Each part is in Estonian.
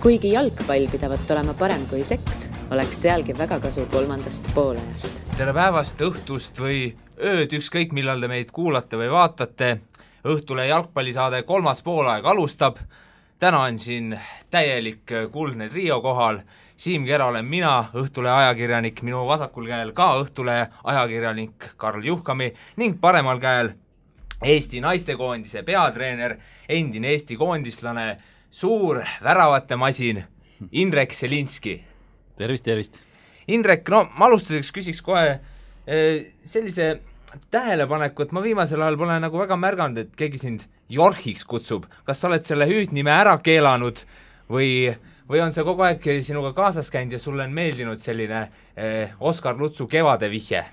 Kuigi jalgpall pidavat olema parem kui seks, oleks sealgi väga kasu 3. poolajast. Tere päevast, õhtust või ööd, ükskõik millal te meid kuulate või vaatate. Õhtule jalgpallisaade 3. poolaeg alustab. Täna on siin täielik kuldne trio kohal. Siim Kera olen mina, Õhtule ajakirjanik, minu vasakul käel ka Õhtule ajakirjanik Karl Juhkami ning paremal käel Eesti naistekoondise peatreener, endine Eesti koondislane, suur väravate masin, Indrek Selinski. Tervist. Indrek, no ma alustuseks küsiks kohe sellise tähelepaneku, et ma viimasel ajal pole nagu väga märganud, et keegi sind Jorhiks kutsub. Kas sa oled selle hüüdnime ära keelanud või on see kogu aeg sinuga kaasas käinud ja sulle on meeldinud selline Oskar Lutsu kevade vihje?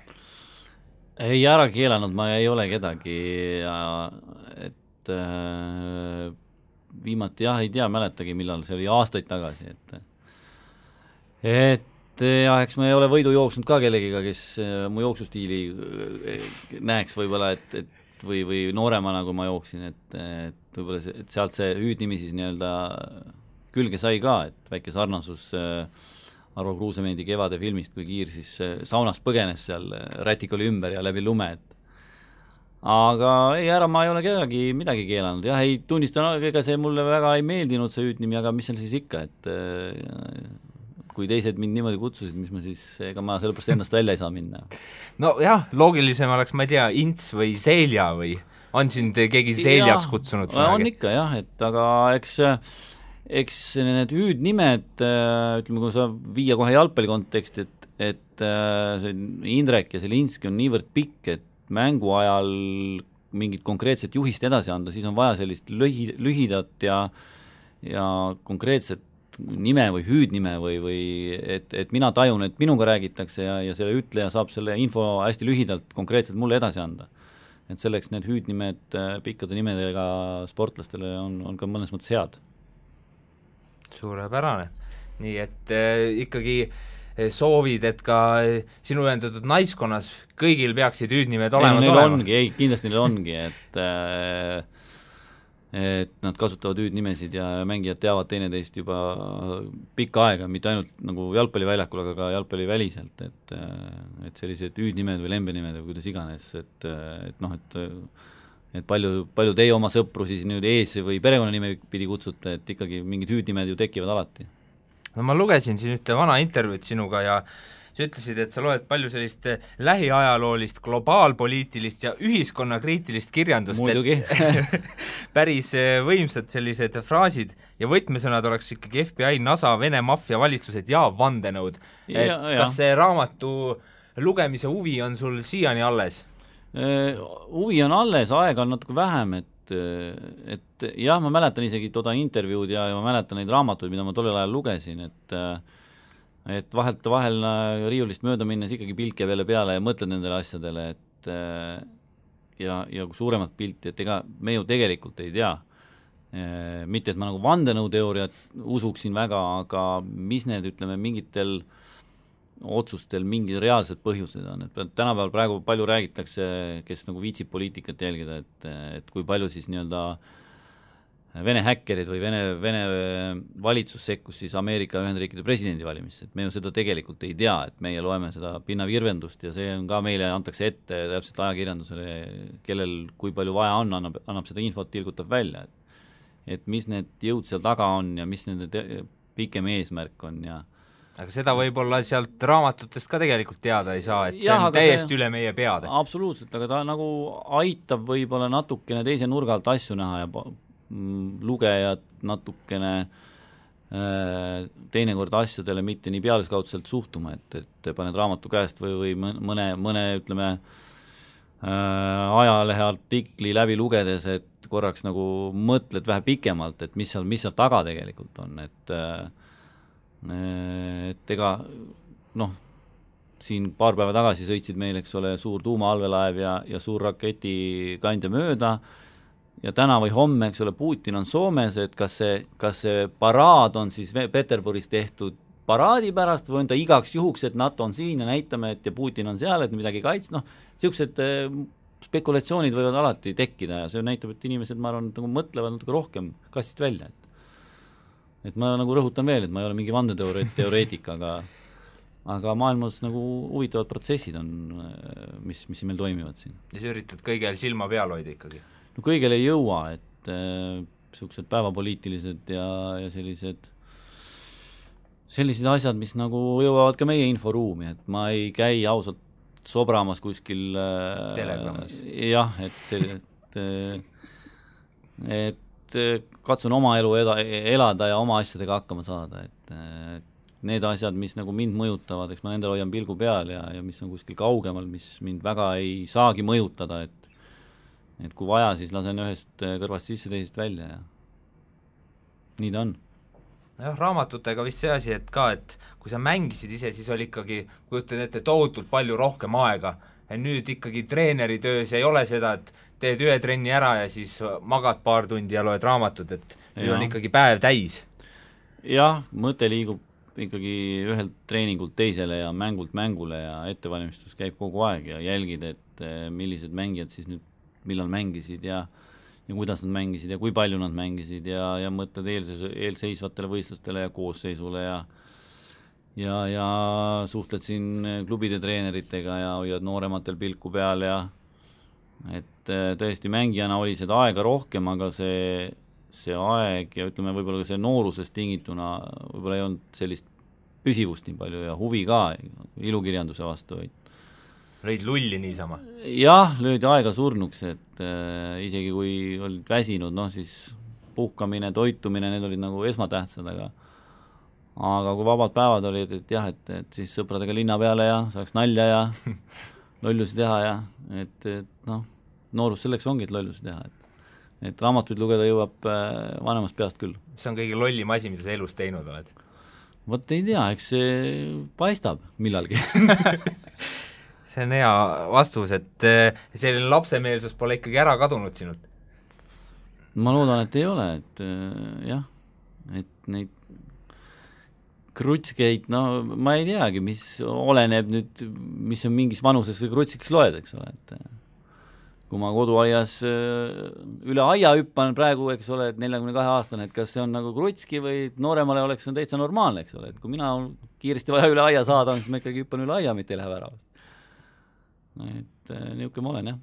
Ei ära keelanud, ma ei ole kedagi et viimati ei tea, mäletagi millal, see oli aastaid tagasi, et eks ma ei ole võidu jooksnud ka kellegiga, kes mu jooksustiili näeks võib-olla, või nooremana, kui ma jooksin, et võib-olla et sealt see hüüdnimi siis nii-öelda külge sai ka, et väike sarnasus Arvo Kruusemendi kevade filmist, kui Kiir siis saunast põgenes seal, rätik oli ümber ja läbi lume, aga ma ei ole kedagi midagi keelanud. Jah, ei tunnistan, ega see mulle väga ei meeldinud see hüüdnimi, aga mis seal siis ikka, et kui teised mind niimoodi kutsusid, mis ma siis, ega ma sellepärast ennast välja ei saa minna. No jah, loogilisem oleks, ma ei tea, Ints või Selja või on sind keegi Seljaks kutsunud? On ikka jah, et aga eks need hüüdnimed, ütleme, kui sa viia kohe jalgpalli konteksti, et see Indrek ja Selinski on niivõrd pikk, et mängu ajal mingit konkreetset juhist edasi anda, siis on vaja sellist lühidat ja konkreetset nime või hüüdnime või et mina tajun, et minuga räägitakse ja selle ütleja saab selle info hästi lühidalt konkreetselt mulle edasi anda. Et selleks need hüüdnimed pikkade nimedega sportlastele on ka mõnes mõttes head. Suurepärane. Nii et ikkagi soovid, et ka sinu ühendatud naiskonnas kõigil peaksid hüüdnimed olema. Kindlasti neil ongi, et nad kasutavad hüüdnimesid ja mängijad teavad teineteist juba pikka aega, mitte ainult nagu jalgpalliväljakul, aga ka jalgpalliväliselt, et sellised hüüdnimed või lembenimed või kuidas iganes, et palju teie oma sõpru siis nüüd ees või perekonnanime pidi kutsute, et ikkagi mingid hüüdnimed ju tekivad alati. No ma lugesin siin ühte vana intervjuud sinuga ja sa ütlesid, et sa loed palju sellist lähiajaloolist, globaalpoliitilist ja ühiskonnakriitilist kirjandust. Muidugi. Päris võimsad sellised fraasid ja võtmesõnad oleks ikkagi FBI, NASA, Vene maffia valitsused ja vandenõud. Kas see raamatu lugemise huvi on sul siiani alles? Huvi on alles, aega on natuke vähem, et jah, ma mäletan isegi toda intervjuud ja ma mäletan neid raamatuid, mida ma tollel ajal lugesin, et vahel riiulist mööda minnes ikkagi pilk jääb jälle peale ja mõtled nendele asjadele, ja suuremat pilti, et ega me ju tegelikult ei tea. Mitte, et ma nagu vandenõuteooriat usuksin väga, aga mis need, ütleme, mingitel otsustel mingid reaalsed põhjused on, et tänapäeval praegu palju räägitakse, kes nagu viitsib poliitikat jälgida, et kui palju siis nii-öelda Vene häkkerid või Vene valitsus sekkus siis Ameerika Ühendriikide presidendivalimisse, et me ju seda tegelikult ei tea, et meie loeme seda pinnavirvendust ja see on ka meile antakse ette täpselt ajakirjandusele, kellel kui palju vaja on, annab seda infot, tilgutab välja, et mis need jõud seal taga on ja mis nende pikem eesmärk on ja aga seda võib-olla sealt raamatutest ka tegelikult teada ei saa, et see on täiesti üle meie peade. Absoluutselt, aga ta nagu aitab võib-olla natukene teise nurga alt asju näha ja lugejad natukene teinekord asjadele mitte nii pealiskaudselt suhtuma, et paned raamatu käest või mõne ütleme ajalehe artikli läbi lugedes, et korraks nagu mõtled vähe pikemalt, et mis seal taga tegelikult on, et ega siin paar päeva tagasi sõitsid meil, eks ole, suur tuumaallvelaev ja suur raketikandja mööda ja täna või homme, eks ole, Putin on Soomes, et kas see paraad on siis Peterburis tehtud paraadi pärast või on ta igaks juhuks, et NATO on siin ja näitame, et ja Putin on seal, et midagi kaitsta, sellised spekulatsioonid võivad alati tekkida ja see näitab, et inimesed, ma arvan, mõtlevad natuke rohkem kastist välja, et ma nagu rõhutan veel, et ma ei ole mingi vandeteoreetik, aga maailmas nagu huvitavad protsessid on, mis meil toimivad siin. Ja sa üritad kõigel silma peal hoida ikkagi? No kõigel ei jõua, et sellised päevapoliitilised ja sellised asjad, mis nagu jõuavad ka meie inforuumi, et ma ei käi ausalt sobramas kuskil Telegramis. Jah, et katsun oma elu elada ja oma asjadega hakkama saada, et need asjad, mis nagu mind mõjutavad, eks ma nendel hoian pilgu peal ja mis on kuskil kaugemal, mis mind väga ei saagi mõjutada, et kui vaja, siis lasen ühest kõrvast sisse, teisest välja ja nii ta on. Jah, raamatutega vist see asi, et kui sa mängisid ise, siis oli ikkagi, kujutan ette, tohutult palju rohkem aega. Ja nüüd ikkagi treeneri töös ei ole seda, et teed ühe trenni ära ja siis magad paar tundi ja loed raamatut, et nüüd on ikkagi päev täis. Jah, mõte liigub ikkagi ühelt treeningult teisele ja mängult mängule ja ettevalmistus käib kogu aeg ja jälgid, et millised mängijad siis nüüd millal mängisid ja kuidas nad mängisid ja kui palju nad mängisid ja mõtled eelseisvatele võistlustele ja koosseisule ja suhtled siin klubide treeneritega ja hoiad noorematel pilku peal ja et tõesti mängijana oli seda aega rohkem, aga see aeg ja ütleme võib-olla ka see noorusest tingituna võib-olla ei olnud sellist püsivust nii palju ja huvi ka ilukirjanduse vastu, lõid lulli niisama? Jah, löödi aega surnuks, et isegi kui olid väsinud, siis puhkamine, toitumine, need olid nagu esmatähtsad, aga kui vabad päevad olid, et jah, et siis sõpradega linna peale ja saaks nalja ja lollusi teha ja et noorus selleks ongi, et lollusi teha, et raamatuid lugeda jõuab vanemast peast küll. Mis on kõige lollim asi, mida sa elus teinud oled? Vot ei tea, eks see paistab millalgi. See on hea vastus, et selline lapsemeelsus pole ikkagi ära kadunud sinult? Ma loodan, et ei ole, et jah, et neid krutskeid, ma ei teagi, mis oleneb nüüd, mis on mingis vanuses krutsiks loed, eks ole, et kui ma koduaias üle aia hüppan praegu, eks ole, et 42-aastane, et kas see on nagu krutski või nooremale oleks see täitsa normaalne, eks ole, et kui mina kiiresti vaja üle aia saada, siis ma ikkagi hüppan üle aia, mitte ei lähe väravast. Et niisugune ma olen, jah.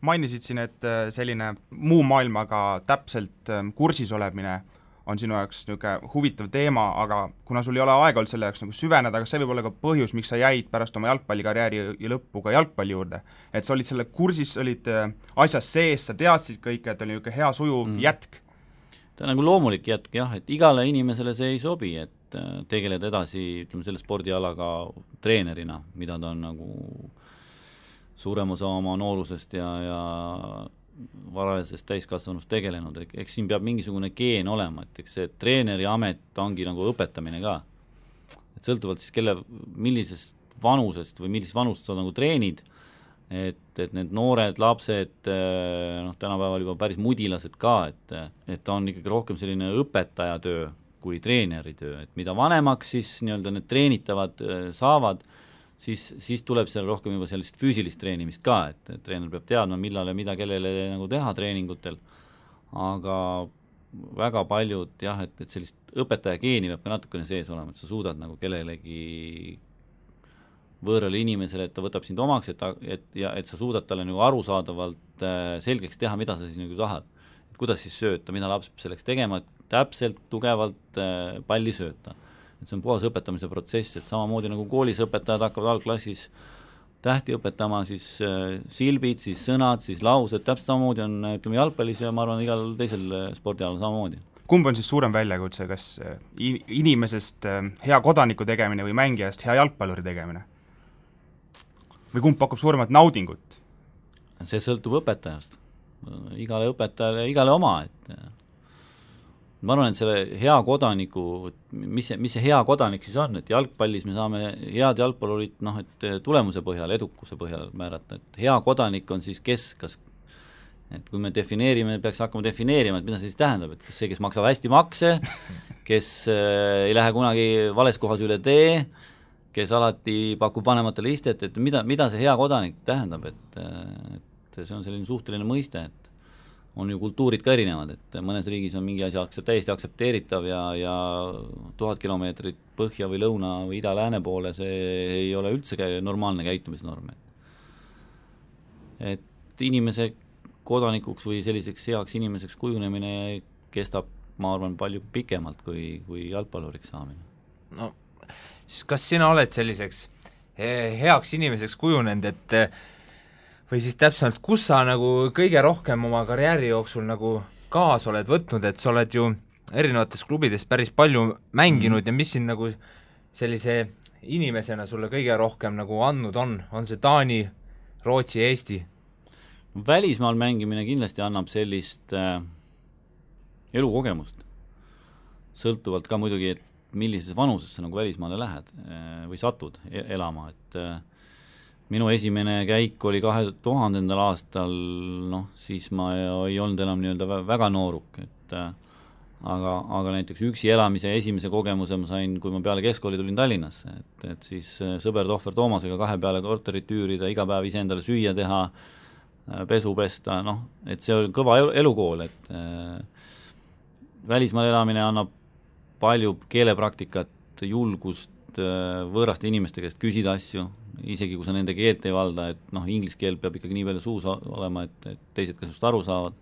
Mainisid siin, et selline muu maailmaga täpselt kursis olemine on sinu jaoks niisugune huvitav teema, aga kuna sul ei ole aega olnud selle jaoks nagu süveneda, aga see võib olla ka põhjus, miks sa jäid pärast oma jalgpallikarjääri ja lõppu ka jalgpalli juurde. Et sa olid selle kursis, olid asjas sees, sa teadsid kõike, et oli niisugune hea sujuv jätk. Ta on nagu loomulik jätk, jah, et igale inimesele see ei sobi, et tegeleda edasi, ütleme, selle spordialaga treenerina, mida ta on nagu suurem osa oma noorusest ja varajasest täiskasvanust tegelenud, eks siin peab mingisugune geen olema, et eks see treeneri amet ongi nagu õpetamine ka. Et sõltuvalt siis millisest vanusest või millisest vanust sa nagu treenid, et need noored lapsed, tänapäeval juba päris mudilased ka, et ta on ikkagi rohkem selline õpetajatöö kui treeneritöö, et mida vanemaks siis nii-öelda need treenitavad saavad, siis tuleb seal rohkem juba sellist füüsilist treenimist ka, et treener peab teadma, millal ja mida kellele nagu teha treeningutel, aga väga paljud jah, et sellist õpetaja geeni peab ka natukene sees olema, et sa suudad nagu kellelegi võõrale inimesele, et ta võtab sind omaks, et sa suudad talle nagu arusaadavalt selgeks teha, mida sa siis nagu tahad. Et kuidas siis sööta, mida laps peab selleks tegema, et täpselt tugevalt palli sööta. Et see on puhas õpetamise protsess, et samamoodi nagu koolis õpetajad hakkavad algklassis tähti õpetama, siis silbid, siis sõnad, siis laused, täpselt samamoodi on, ütleme, jalgpallis ja ma arvan, igal teisel spordialal samamoodi. Kumb on siis suurem väljakutse, kas inimesest hea kodaniku tegemine või mängijast hea jalgpalluri tegemine? Või kumb pakub suuremat naudingut? See sõltub õpetajast. Igale õpetajale, igale oma, et ma arvan, et selle hea kodaniku, mis see hea kodanik siis on, et jalgpallis me saame head jalgpallurit et tulemuse põhjal, edukuse põhjal määrata, et hea kodanik on siis kas et kui me peaks hakkama defineerima, et mida see siis tähendab, et kas see, kes maksab hästi makse, kes ei lähe kunagi vales kohas üle tee, kes alati pakub vanematele istet, et mida see hea kodanik tähendab, et see on selline suhteline mõiste, on ju kultuurid ka erinevad, et mõnes riigis on mingi asi täiesti aktsepteeritav ja 1000 kilomeetrit põhja või lõuna või ida-lääne poole, see ei ole üldse normaalne käitumisnorm. Et inimese kodanikuks või selliseks heaks inimeseks kujunemine kestab, ma arvan, palju pikemalt kui jalgpalluriks saamine. No, kas sina oled selliseks heaks inimeseks kujunenud, et või siis täpsemalt, kus sa nagu kõige rohkem oma karjääri jooksul nagu kaasa oled võtnud, et sa oled ju erinevates klubides päris palju mänginud ja mis siin nagu sellise inimesena sulle kõige rohkem nagu andnud on see Taani, Rootsi, Eesti? Välismaal mängimine kindlasti annab sellist elukogemust, sõltuvalt ka muidugi, et millises vanuses sa nagu välismaale lähed või satud elama, et minu esimene käik oli 2000. aastal, siis ma ei olnud enam nii-öelda väga nooruk, et aga näiteks üksi elamise esimese kogemuse ma sain, kui ma peale keskkooli tulin Tallinnasse, et siis sõber Tohver Toomasega 2 peale korterit üürida, iga päev ise endale süüa teha, pesu pesta, et see oli kõva elukool, et välismaal elamine annab palju keelepraktikat, julgust võõraste inimeste käest küsida asju, isegi kui sa nende keelt ei valda, et inglise keel peab ikkagi nii palju suus olema, et teised ka sust aru saavad.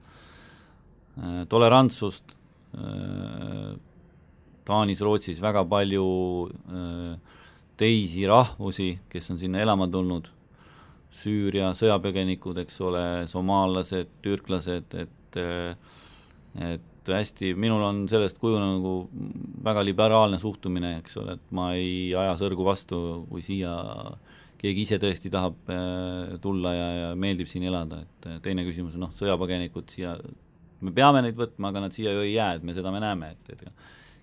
Tolerantsust, Taanis, Rootsis väga palju teisi rahvusi, kes on sinna elama tulnud, Süüria sõjapõgenikud, eks ole, somaallased, türklased, et hästi, minul on sellest kujunenud nagu väga liberaalne suhtumine, eks ole, et ma ei aja sõrgu vastu, kui siia keegi ise tõesti tahab tulla ja meeldib siin elada, et teine küsimus on, sõjapõgenikud siia, me peame neid võtma, aga nad siia ju ei jää, et me näeme, et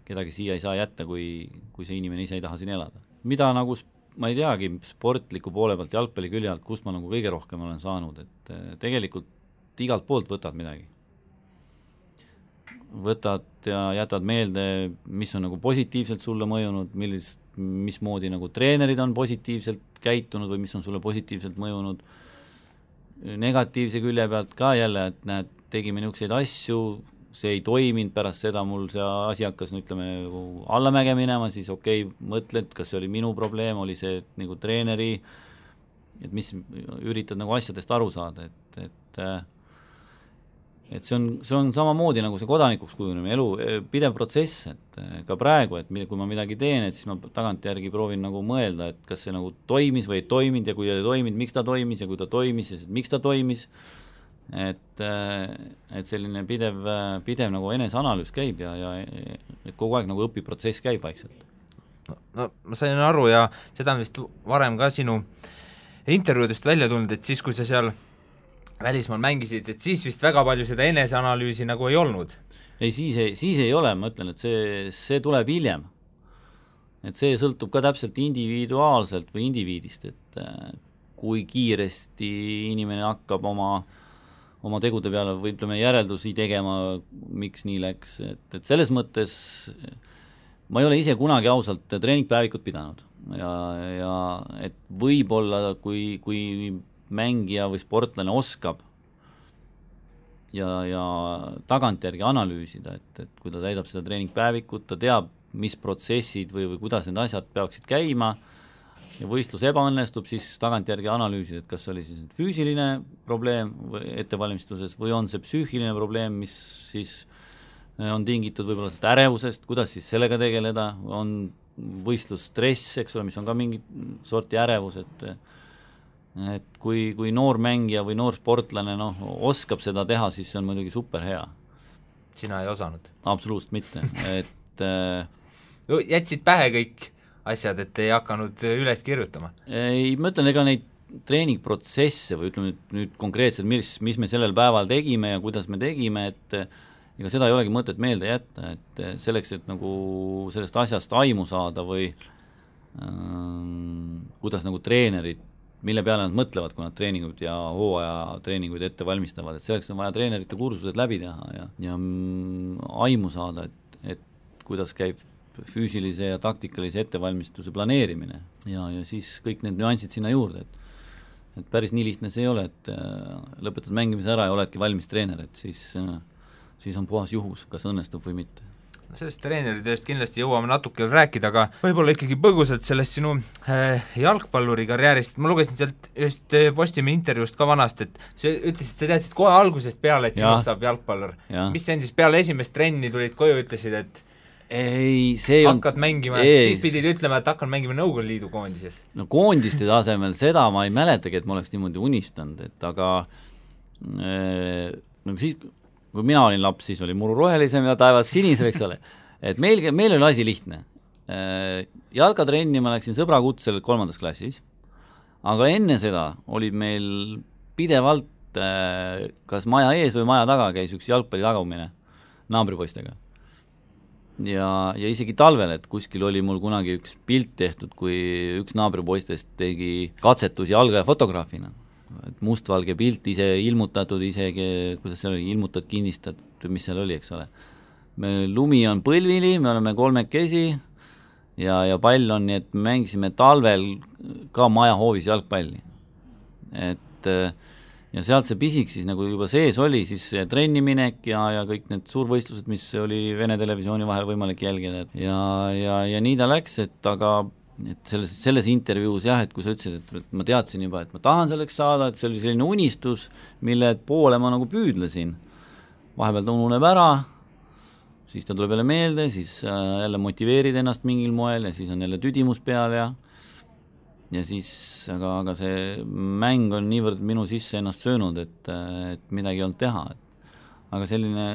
kedagi siia ei saa jätta, kui see inimene ise ei taha siin elada. Mida nagu, ma ei teagi, sportliku poole pealt, jalgpalli külje alt, kust ma nagu kõige rohkem olen saanud, et tegelikult igalt poolt võtad midagi. Võtad ja jätad meelde, mis on nagu positiivselt sulle mõjunud, mismoodi nagu treenerid on positiivselt käitunud või mis on sulle positiivselt mõjunud. Negatiivse külje pealt ka jälle, et näed, tegime niisuguseid asju, see ei toiminud, pärast seda mul see asi hakkas, nagu allamäge minema, siis mõtled, kas see oli minu probleem, oli see nagu treeneri, et mis üritad nagu asjadest aru saada, et see on samamoodi nagu see kodanikuks kujunemine, elu pidev protsess, et ka praegu, et kui ma midagi teen, et siis ma tagantjärgi proovin nagu mõelda, et kas see nagu toimis või ei toiminud ja kui ei toiminud, miks ta toimis ja kui ta toimis ja miks ta toimis, et selline pidev nagu eneseanalüüs käib ja et kogu aeg nagu õpiprotsess käib vaikselt. No ma sain aru ja seda on vist varem ka sinu intervjuudest välja tulnud, et siis, kui sa seal välismaal mängisid, et siis vist väga palju seda eneseanalüüsi nagu ei olnud. Ei, siis ei ole, ma ütlen, et see tuleb hiljem. Et see sõltub ka täpselt individuaalselt või indiviidist, et kui kiiresti inimene hakkab oma tegude peale või ütleme järeldusi tegema, miks nii läks, et selles mõttes ma ei ole ise kunagi ausalt treeningpäevikut pidanud ja et võib-olla kui mängija või sportlane oskab ja tagantjärgi analüüsida, et kui ta täidab seda treeningpäevikut, ta teab, mis protsessid või kuidas need asjad peaksid käima ja võistlus ebaõnnestub, siis tagantjärgi analüüsida, et kas oli siis füüsiline probleem ettevalmistuses või on see psüühiline probleem, mis siis on tingitud võib-olla seda ärevusest, kuidas siis sellega tegeleda, on võistlusstress, eks ole, mis on ka mingi sorti ärevus, et kui noor mängija või noor sportlane oskab seda teha, siis see on muidugi super hea. Sina ei osanud? Absoluutselt mitte, et jätsid pähe kõik asjad, et ei hakanud üles kirjutama? Ei, ma ütlen, ega neid treeningprotsesse või ütleme nüüd konkreetselt, mis me sellel päeval tegime ja kuidas me tegime, et ega seda ei olegi mõtet meelde jätta, et selleks, et nagu sellest asjast aimu saada või kuidas nagu treenerid, mille peale nad mõtlevad, kui nad treeninguid ja hooaja treeninguid ette valmistavad, et selleks on vaja treenerite kursused läbi teha ja aimu saada, et kuidas käib füüsilise ja taktikalise ettevalmistuse planeerimine ja siis kõik need nüansid sinna juurde, et päris nii lihtne see ei ole, et lõpetad mängimise ära ja oledki valmis treener, et siis on puhas juhus, kas õnnestub või mitte. Sellest treeneritööst kindlasti jõuame natuke rääkida, aga võib-olla ikkagi põgusalt sellest sinu jalgpalluri karjäärist. Ma lugesin sealt just Postimehe intervjuust ka vanast, et sa ütlesid, sa teadsid kohe algusest peale, et sinust saab jalgpallur. Mis see on siis peale esimest trenni tulid koju, ütlesid, et ei, see hakkad mängima, siis pidid ütlema, et hakkan mängima Nõukogude Liidu koondises. No koondiste tasemel seda ma ei mäletagi, et ma oleks niimoodi unistanud, et aga siis, kui mina olin laps, siis oli muru rohelisem ja taevas sinisem, eks ole. Et meil oli asi lihtne. Jalgatrenni ma läksin sõbra kutsel 3. klassis, aga enne seda olid meil pidevalt kas maja ees või maja taga käis üks jalgpalli tagamine naabripoistega. Ja isegi talvel, et kuskil oli mul kunagi üks pilt tehtud, kui üks naabripoistest tegi katsetusi jalga ja fotograafina. Et mustvalge pilt ise ilmutatud, isegi, kuidas see oli, ilmutad, kinnistad, mis seal oli, eks ole. Lumi on põlvili, me oleme 3 ja pall on, nii et me mängisime talvel ka maja hoovis jalgpalli. Ja sealt see pisik siis nagu juba sees oli, siis trenniminek ja kõik need suurvõistlused, mis oli Vene televisiooni vahel võimalik jälgida. Ja nii ta läks, aga selles intervjuus jah, et kui sa ütlesid, et ma teadsin juba, et ma tahan selleks saada, et see oli selline unistus, mille poole ma nagu püüdlesin. Vahepeal ta ununeb ära, siis ta tuleb jälle meelde, siis jälle motiveerid ennast mingil moel ja siis on jälle tüdimus peal ja siis, aga see mäng on niivõrd minu sisse ennast söönud, et midagi ei olnud teha. Aga selline,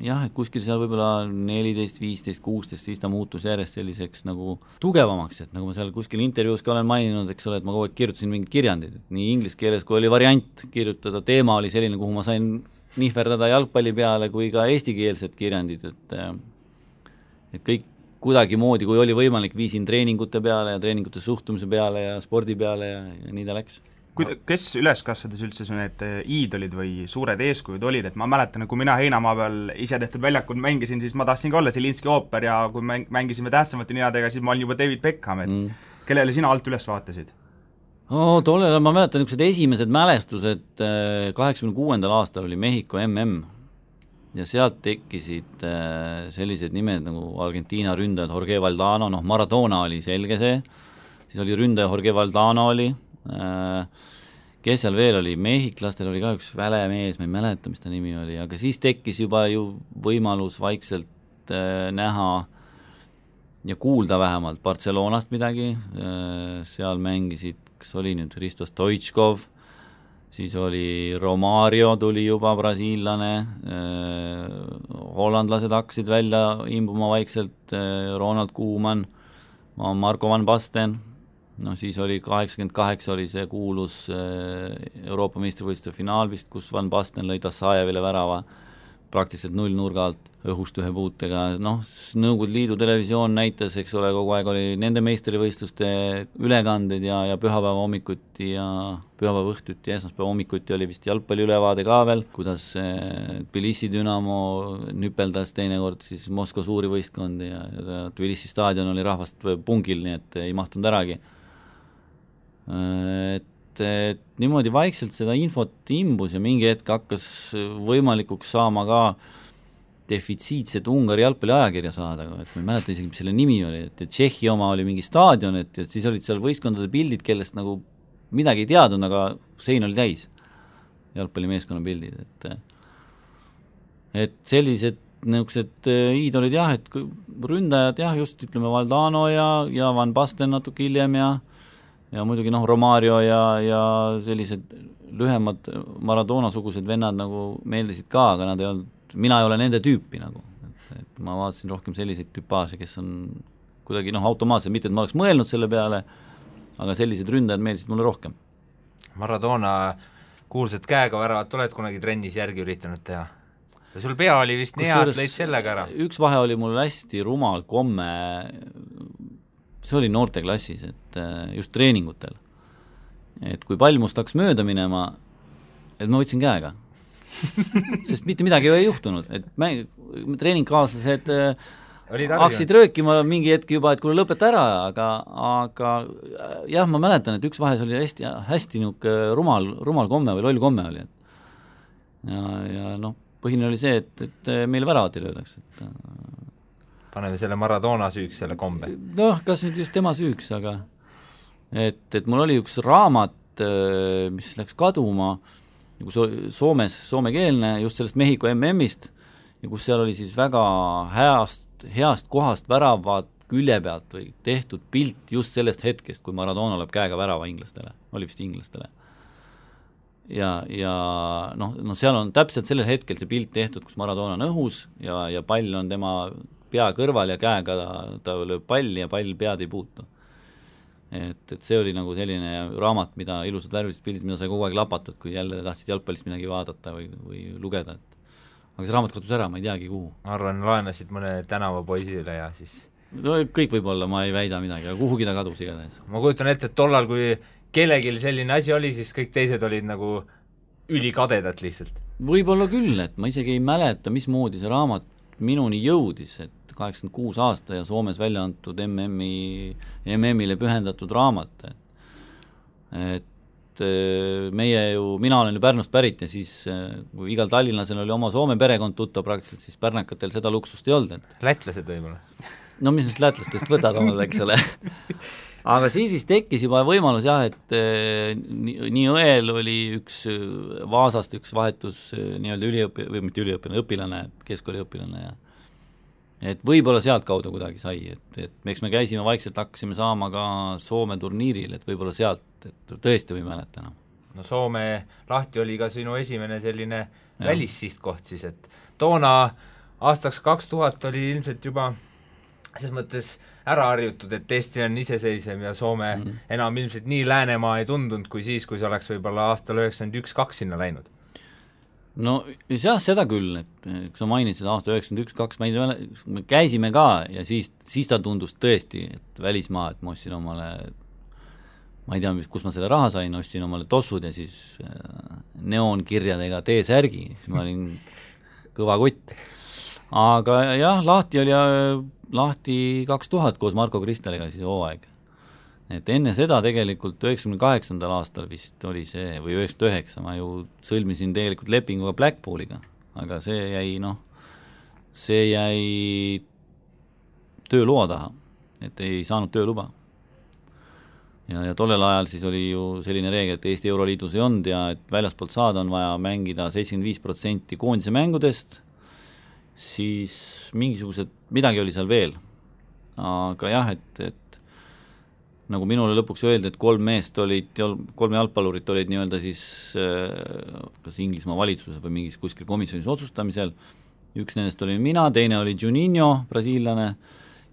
jah, et kuskil seal võib-olla 14, 15, 16, siis ta muutus järjest selliseks nagu tugevamaks, et nagu ma seal kuskil intervjuus ka olen maininud, eks ole, et ma kogu aeg kirjutasin mingid kirjandid, et nii inglise keeles, kui oli variant kirjutada, teema oli selline, kuhu ma sain nihverdada jalgpalli peale, kui ka eestikeelsed kirjandid, et kõik kuidagi moodi, kui oli võimalik, viisin treeningute peale ja treeningute suhtumise peale ja spordi peale ja nii ta läks. Kes üles kasvades üldse need iidolid või suured eeskujud olid, et ma mäletan, kui mina Heinamaa peal ise tehtud väljakul mängisin, siis ma tahtsin ka olla Zelinski ooper ja kui mängisime tähtsamate ninadega, siis ma olin juba David Beckham, et kellele sina alt üles vaatasid? Tollel ma mäletan niisugused esimesed mälestused, 86. aastal oli Mehhiko MM ja sealt tekkisid sellised nimed nagu Argentiina ründajad Jorge Valdano, Maradona oli selge see, siis oli ründaja Jorge Valdano oli, kes seal veel oli, mehhiklastel oli ka üks välemees, ma ei mäleta, mis ta nimi oli, aga siis tekkis juba ju võimalus vaikselt näha ja kuulda vähemalt Barcelonast midagi, seal mängisid, kas oli nüüd Hristo Stoichkov, siis oli Romario tuli juba brasiillane, hollandlased hakkasid välja imbuma vaikselt, Ronald Koeman, Marco van Basten, siis oli 88 oli see kuulus Euroopa meistrivõistluste finaal vist, kus Van Basten lõi Tassajevile värava praktiliselt 0 nurga alt õhust ühe puutega, Nõukogude Liidu televisioon näitas, eks ole, kogu aeg oli nende meistrivõistluste ülekanded ja pühapäeva hommikuti ja pühapäeva õhtuti ja esmaspäeva hommikuti oli vist jalgpalli ülevaade ka veel, kuidas Tbilisi Dünamo nüpeldas teinekord siis Moskva suuri võistkondi ja Tbilisi staadion oli rahvast pungil, nii et ei mahtunud äragi. Et niimoodi vaikselt seda infot imbus ja mingi hetk hakkas võimalikuks saama ka defitsiitset Ungari jalgpalli ajakirja saada, et ma ei mäleta isegi, mis selle nimi oli, et Tšehhi oma oli mingi staadion, et siis olid seal võistkondade pildid, kellest nagu midagi ei teadnud, aga sein oli täis jalgpallimeeskonna pildid, et sellised niisugused iidolid jah, et ründajad jah, just ütleme Valdano ja Van Basten natuke hiljem ja muidugi Romario ja sellised lühemad Maradona-sugused vennad nagu meeldisid ka, aga nad ei olnud, mina ei ole nende tüüpi nagu, et ma vaatasin rohkem selliseid tüpaaže, kes on kuidagi automaatselt, mitte et ma oleks mõelnud selle peale, aga sellised ründajad meeldisid mulle rohkem. Maradona kuulsad käega väravat oled kunagi trennis järgi üritanud teha? Ja sul pea oli vist nii hea, et lõid sellega ära? Üks vahe oli mul hästi rumal komme, see oli noorteklassis, et just treeningutel, et kui pall must hakkas mööda minema, et ma võtsin käega sest mitte midagi ei juhtunud, et treeningkaaslased hakkasid röökima mingi hetk juba, et kuule lõpeta ära, aga jah, ma mäletan, et üks vahes oli hästi niisugune rumal komme või loll komme oli. Ja noh, põhine oli see, et meile väravat ei löödaks. Paneme selle Maradona süüks, selle kombe. Noh, kas nüüd just tema süüks, aga et mul oli üks raamat, mis läks kaduma, soomekeelne, just sellest Mehhiko MM-ist, ja kus seal oli siis väga heast kohast väravad külje pealt või tehtud pilt just sellest hetkest, kui Maradona lööb käega värava inglastele, oli vist inglastele. Ja noh, seal on täpselt sellel hetkel see pilt tehtud, kus Maradona on õhus ja pall on tema pea kõrval ja käega ta lööb palli ja pall pead ei puutu. Et see oli nagu selline raamat, mida ilusad värvilised pildid, mida sai kogu aeg lapatud, kui jälle tahtsid jalgpallist midagi vaadata või lugeda. Aga see raamat kadus ära, ma ei teagi kuhu. Ma arvan, laenasid mõne tänavapoisile ja siis... No kõik võib-olla, ma ei väida midagi, aga kuhugi ta kadus igatahes. Ma kujutan ette, et tollal, kui kellegil selline asi oli, siis kõik teised olid nagu ülikadedad lihtsalt. Võib-olla küll, et ma isegi ei mäleta, mismoodi see raamat minuni jõudis, et 86 aasta ja Soomes välja antud MM-ile pühendatud raamat. Et mina olen ju Pärnust pärit ja siis kui igal tallinlasel oli oma Soome perekond tuttav praktiliselt, siis pärnakatel seda luksust ei olnud. Lätlased võib-olla? No mis neist lätlastest võtad omal, eks ole. Aga siis tekkis juba võimalus jah, et nii õel oli Vaasast üks vahetus nii-öelda õpilane, keskkooliõpilane ja et võib-olla sealt kaudu kuidagi sai, et eks me käisime vaikselt, hakkasime saama ka Soome turniiril, et võib-olla sealt, et tõesti või mäleta. No Soome lahti oli ka sinu esimene selline välissihtkoht siis, et toona aastaks 2000 oli ilmselt juba selles mõttes ära harjutud, et Eesti on iseseisev ja Soome enam ilmselt nii Läänemaa ei tundunud kui siis, kui see oleks võib-olla aastal 91-2 sinna läinud. No jah, seda küll, et kui sa mainid seda aasta 91-2, me käisime ka ja siis ta tundus tõesti, et välismaa, et ma ostsin omale, ma ei tea, kus ma selle raha sain, ostsin omale tossud ja siis neoonkirjadega T-särgi, siis ma olin kõva kutt. Aga jah, lahti 2000 koos Marko Kristeliga siis hooaeg. Et enne seda tegelikult 98. aastal vist oli see, või 99, ma ju sõlmisin tegelikult lepinguga Blackpooliga, aga see jäi tööloa taha, et ei saanud tööluba. Ja tollel ajal siis oli ju selline reegel, et Eesti Euroliidus ei olnud ja et väljaspoolt saada on vaja mängida 75% koondise mängudest, siis midagi oli seal veel. Aga jah, et nagu minule lõpuks öeldi, et kolm jalgpallurit olid nii-öelda siis kas Inglismaa valitsuses või mingis kuskil komisjonis otsustamisel. Üks nendest oli mina, teine oli Juninho, brasiillane,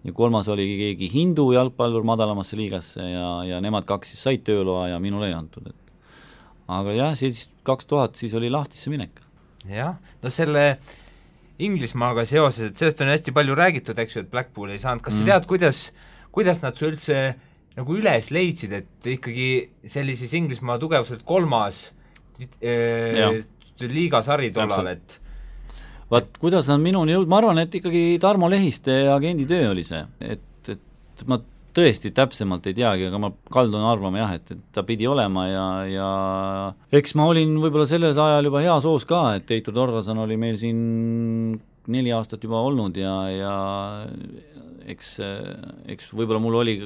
ja kolmas oli keegi hindu jalgpallur madalamasse liigasse ja nemad kaks siis said tööloa ja minule ei antud. Aga jah, siis 2000 siis oli lahtisse minek. Jah, no selle Inglismaaga seoses, et sellest on hästi palju räägitud, eks ju, et Blackpool ei saanud. Kas sa tead, kuidas nad su üldse nagu üles leidsid, et ikkagi sellises Inglismaa tugevuselt kolmas liigasari tollal, et vaat, kuidas nad minuni jõud, ma arvan, et ikkagi Tarmo Lehiste agendi töö oli see, et ma tõesti täpsemalt ei teagi, aga ma kaldun arvama jah, et ta pidi olema ja eks ma olin võib-olla sellel ajal juba hea soos ka, et Heitor Torlason oli meil siin 4 aastat juba olnud ja eks võib-olla mul oli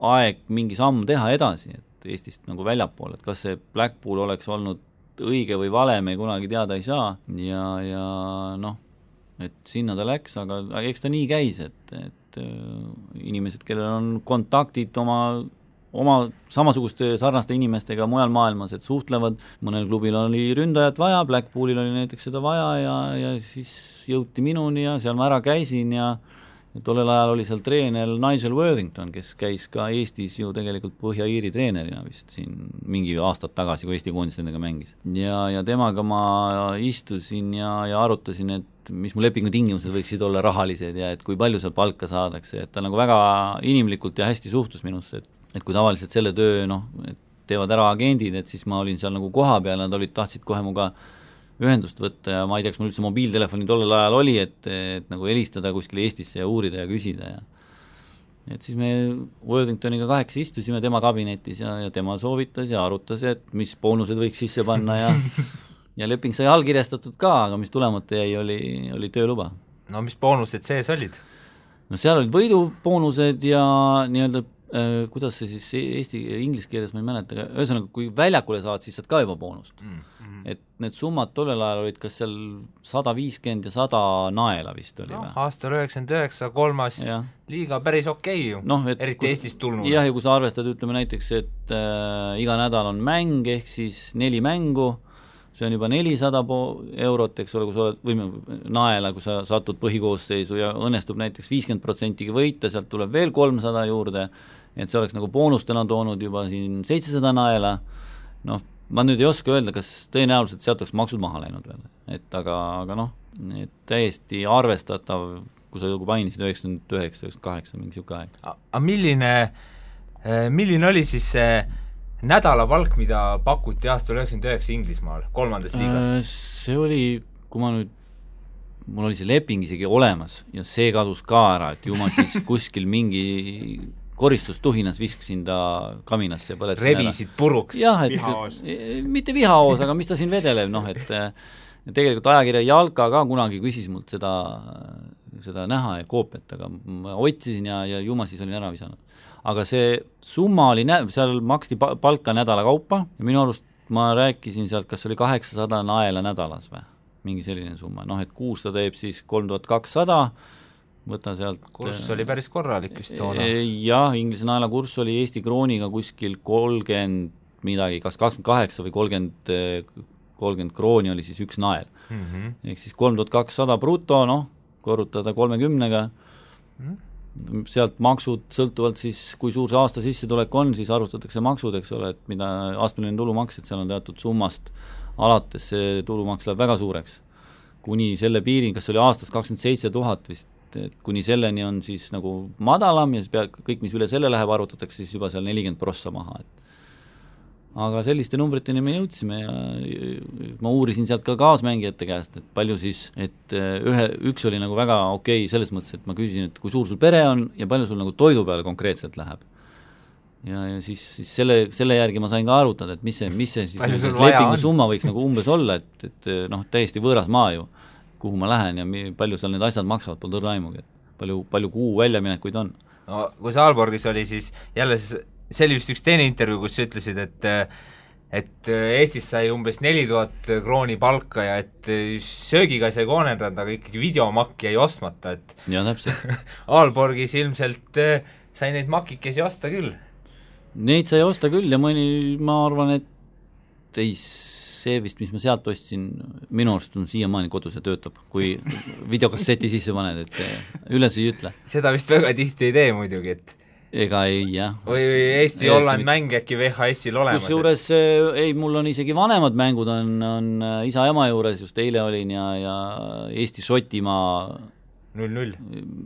aeg mingi samm teha edasi, et Eestist nagu väljapool, et kas see Blackpool oleks olnud õige või vale, me kunagi teada ei saa ja noh, et sinna ta läks, aga eks ta nii käis, et inimesed, kellel on kontaktid oma samasuguste sarnaste inimestega mujal maailmas, et suhtlevad, mõnel klubil oli ründajat vaja, Blackpoolil oli näiteks seda vaja ja siis jõuti minuni ja seal ma ära käisin ja tollel ajal oli seal treener Nigel Worthington, kes käis ka Eestis ju tegelikult Põhja-Iiri treenerina vist siin mingi aastad tagasi, kui Eesti koondis nendega mängis. Ja temaga ma istusin ja arutasin, et mis mu lepingu tingimused võiksid olla rahalised ja et kui palju seal palka saadakse, et ta nagu väga inimlikult ja hästi suhtus minusse, et kui tavaliselt selle töö, et teevad ära agendid, et siis ma olin seal nagu koha peal, nad tahtsid kohe muga ühendust võtta ja ma ei tea, kas mul üldse mobiiltelefoni tollel ajal oli, et nagu helistada kuskile Eestisse ja uurida ja küsida ja et siis me Worthingtoniga 8 istusime tema kabinetis ja tema soovitas ja arutas, et mis boonused võiks sisse panna ja leping sai allkirjastatud ka, aga mis tulemata jäi, oli tööluba. No mis boonused sees olid? No seal olid võiduboonused ja nii-öelda kuidas see siis inglise keeles ma ei mäleta, ühesõnaga kui väljakule saad, siis saad ka juba boonust. Et need summad tollel ajal olid kas seal 150 ja 100 naela vist oli või? Aastal 99, 3. liiga päris okei ju, eriti Eestist tulnud. Jah, ja kui sa arvestad, ütleme näiteks, et iga nädal on mäng, ehk siis 4 mängu, see on juba 400 eurot, eks ole, kui sa oled naela, kui sa satud põhikoosseisu ja õnnestub näiteks 50% võita, sealt tuleb veel 300 juurde, et see oleks nagu boonustena toonud juba siin 700 naela, ma nüüd ei oska öelda, kas tõenäoliselt sealt oleks maksud maha läinud veel, et aga et täiesti arvestatav, kui sa mainisid 99, 98, mingi siuke aeg. Aga milline oli siis see nädalapalk, mida pakuti aastal 99 Inglismaal, 3. liigas? See oli, kui mul oli see leping isegi olemas ja see kadus ka ära, et ju ma siis kuskil mingi koristustuhinas viskasin ta kaminasse ja põletasin rebisid puruks. Jah, vihaoos. Mitte vihaoos, aga mis ta siin vedelev, et tegelikult ajakirja Jalka ka kunagi küsis mult seda näha ja koopiat, aga ma otsisin ja ju ma siis olin ära visanud. Aga see summa oli, seal maksti palka nädala kaupa ja minu arust ma rääkisin sealt, kas oli 800 naela nädalas või, mingi selline summa, et kuus ta teeb siis 3200, võta sealt kurss oli päris korralik vist toona. Jah, inglise naela kurss oli Eesti krooniga kuskil 30 midagi, kas 28 või 30 krooni oli siis üks nael. Ehk siis 3200 bruto, korrutada 30-ga, sealt maksud sõltuvalt siis, kui suur see aasta sissetulek on, siis arvustatakse maksud, eks ole, et mida astmeline tulumaks, et seal on teatud summast alates see tulumaks läheb väga suureks. Kuni selle piirin, kas oli aastas 27 000 vist, et kuni selleni on siis nagu madalam ja siis kõik, mis üle selle läheb, arvutatakse siis juba seal 40% maha. Aga selliste numbriteni me jõudsime ja ma uurisin sealt ka kaasmängijate käest, et palju siis, et üks oli nagu väga okei selles mõttes, et ma küsisin, et kui suur sul pere on ja palju sul nagu toidu peale konkreetselt läheb. Ja siis selle järgi ma sain ka arutada, et mis see siis lepingu summa võiks nagu umbes olla, et täiesti võõras maa ju, kuhu ma lähen ja palju seal need asjad maksavad, pole tõrda aimugi, et palju kuu väljaminekuid on. No kui sa Aalborgis oli, siis jälle see oli vist üks teine intervjuu, kus sa ütlesid, et Eestis sai umbes 4000 krooni palka ja et söögiga sai koonendada, aga ikkagi videomakk jäi ostmata, et ja täpselt. Aalborgis ilmselt sai neid makikesi osta küll. Neid sai osta küll ja ma arvan, et see vist, mis ma sealt ostsin, minu arust on siiamaani kodus ja töötab, kui videokasseti sisse paned, et üles ei ütle. Seda vist väga tihti ei tee muidugi, et ega ei, jah. Või Eesti-Holland mäng äkki VHS-il olemas. Kusjuures mul on isegi vanemad mängud on isa ema juures, just eile olin ja Eesti-Šotimaa 0-0.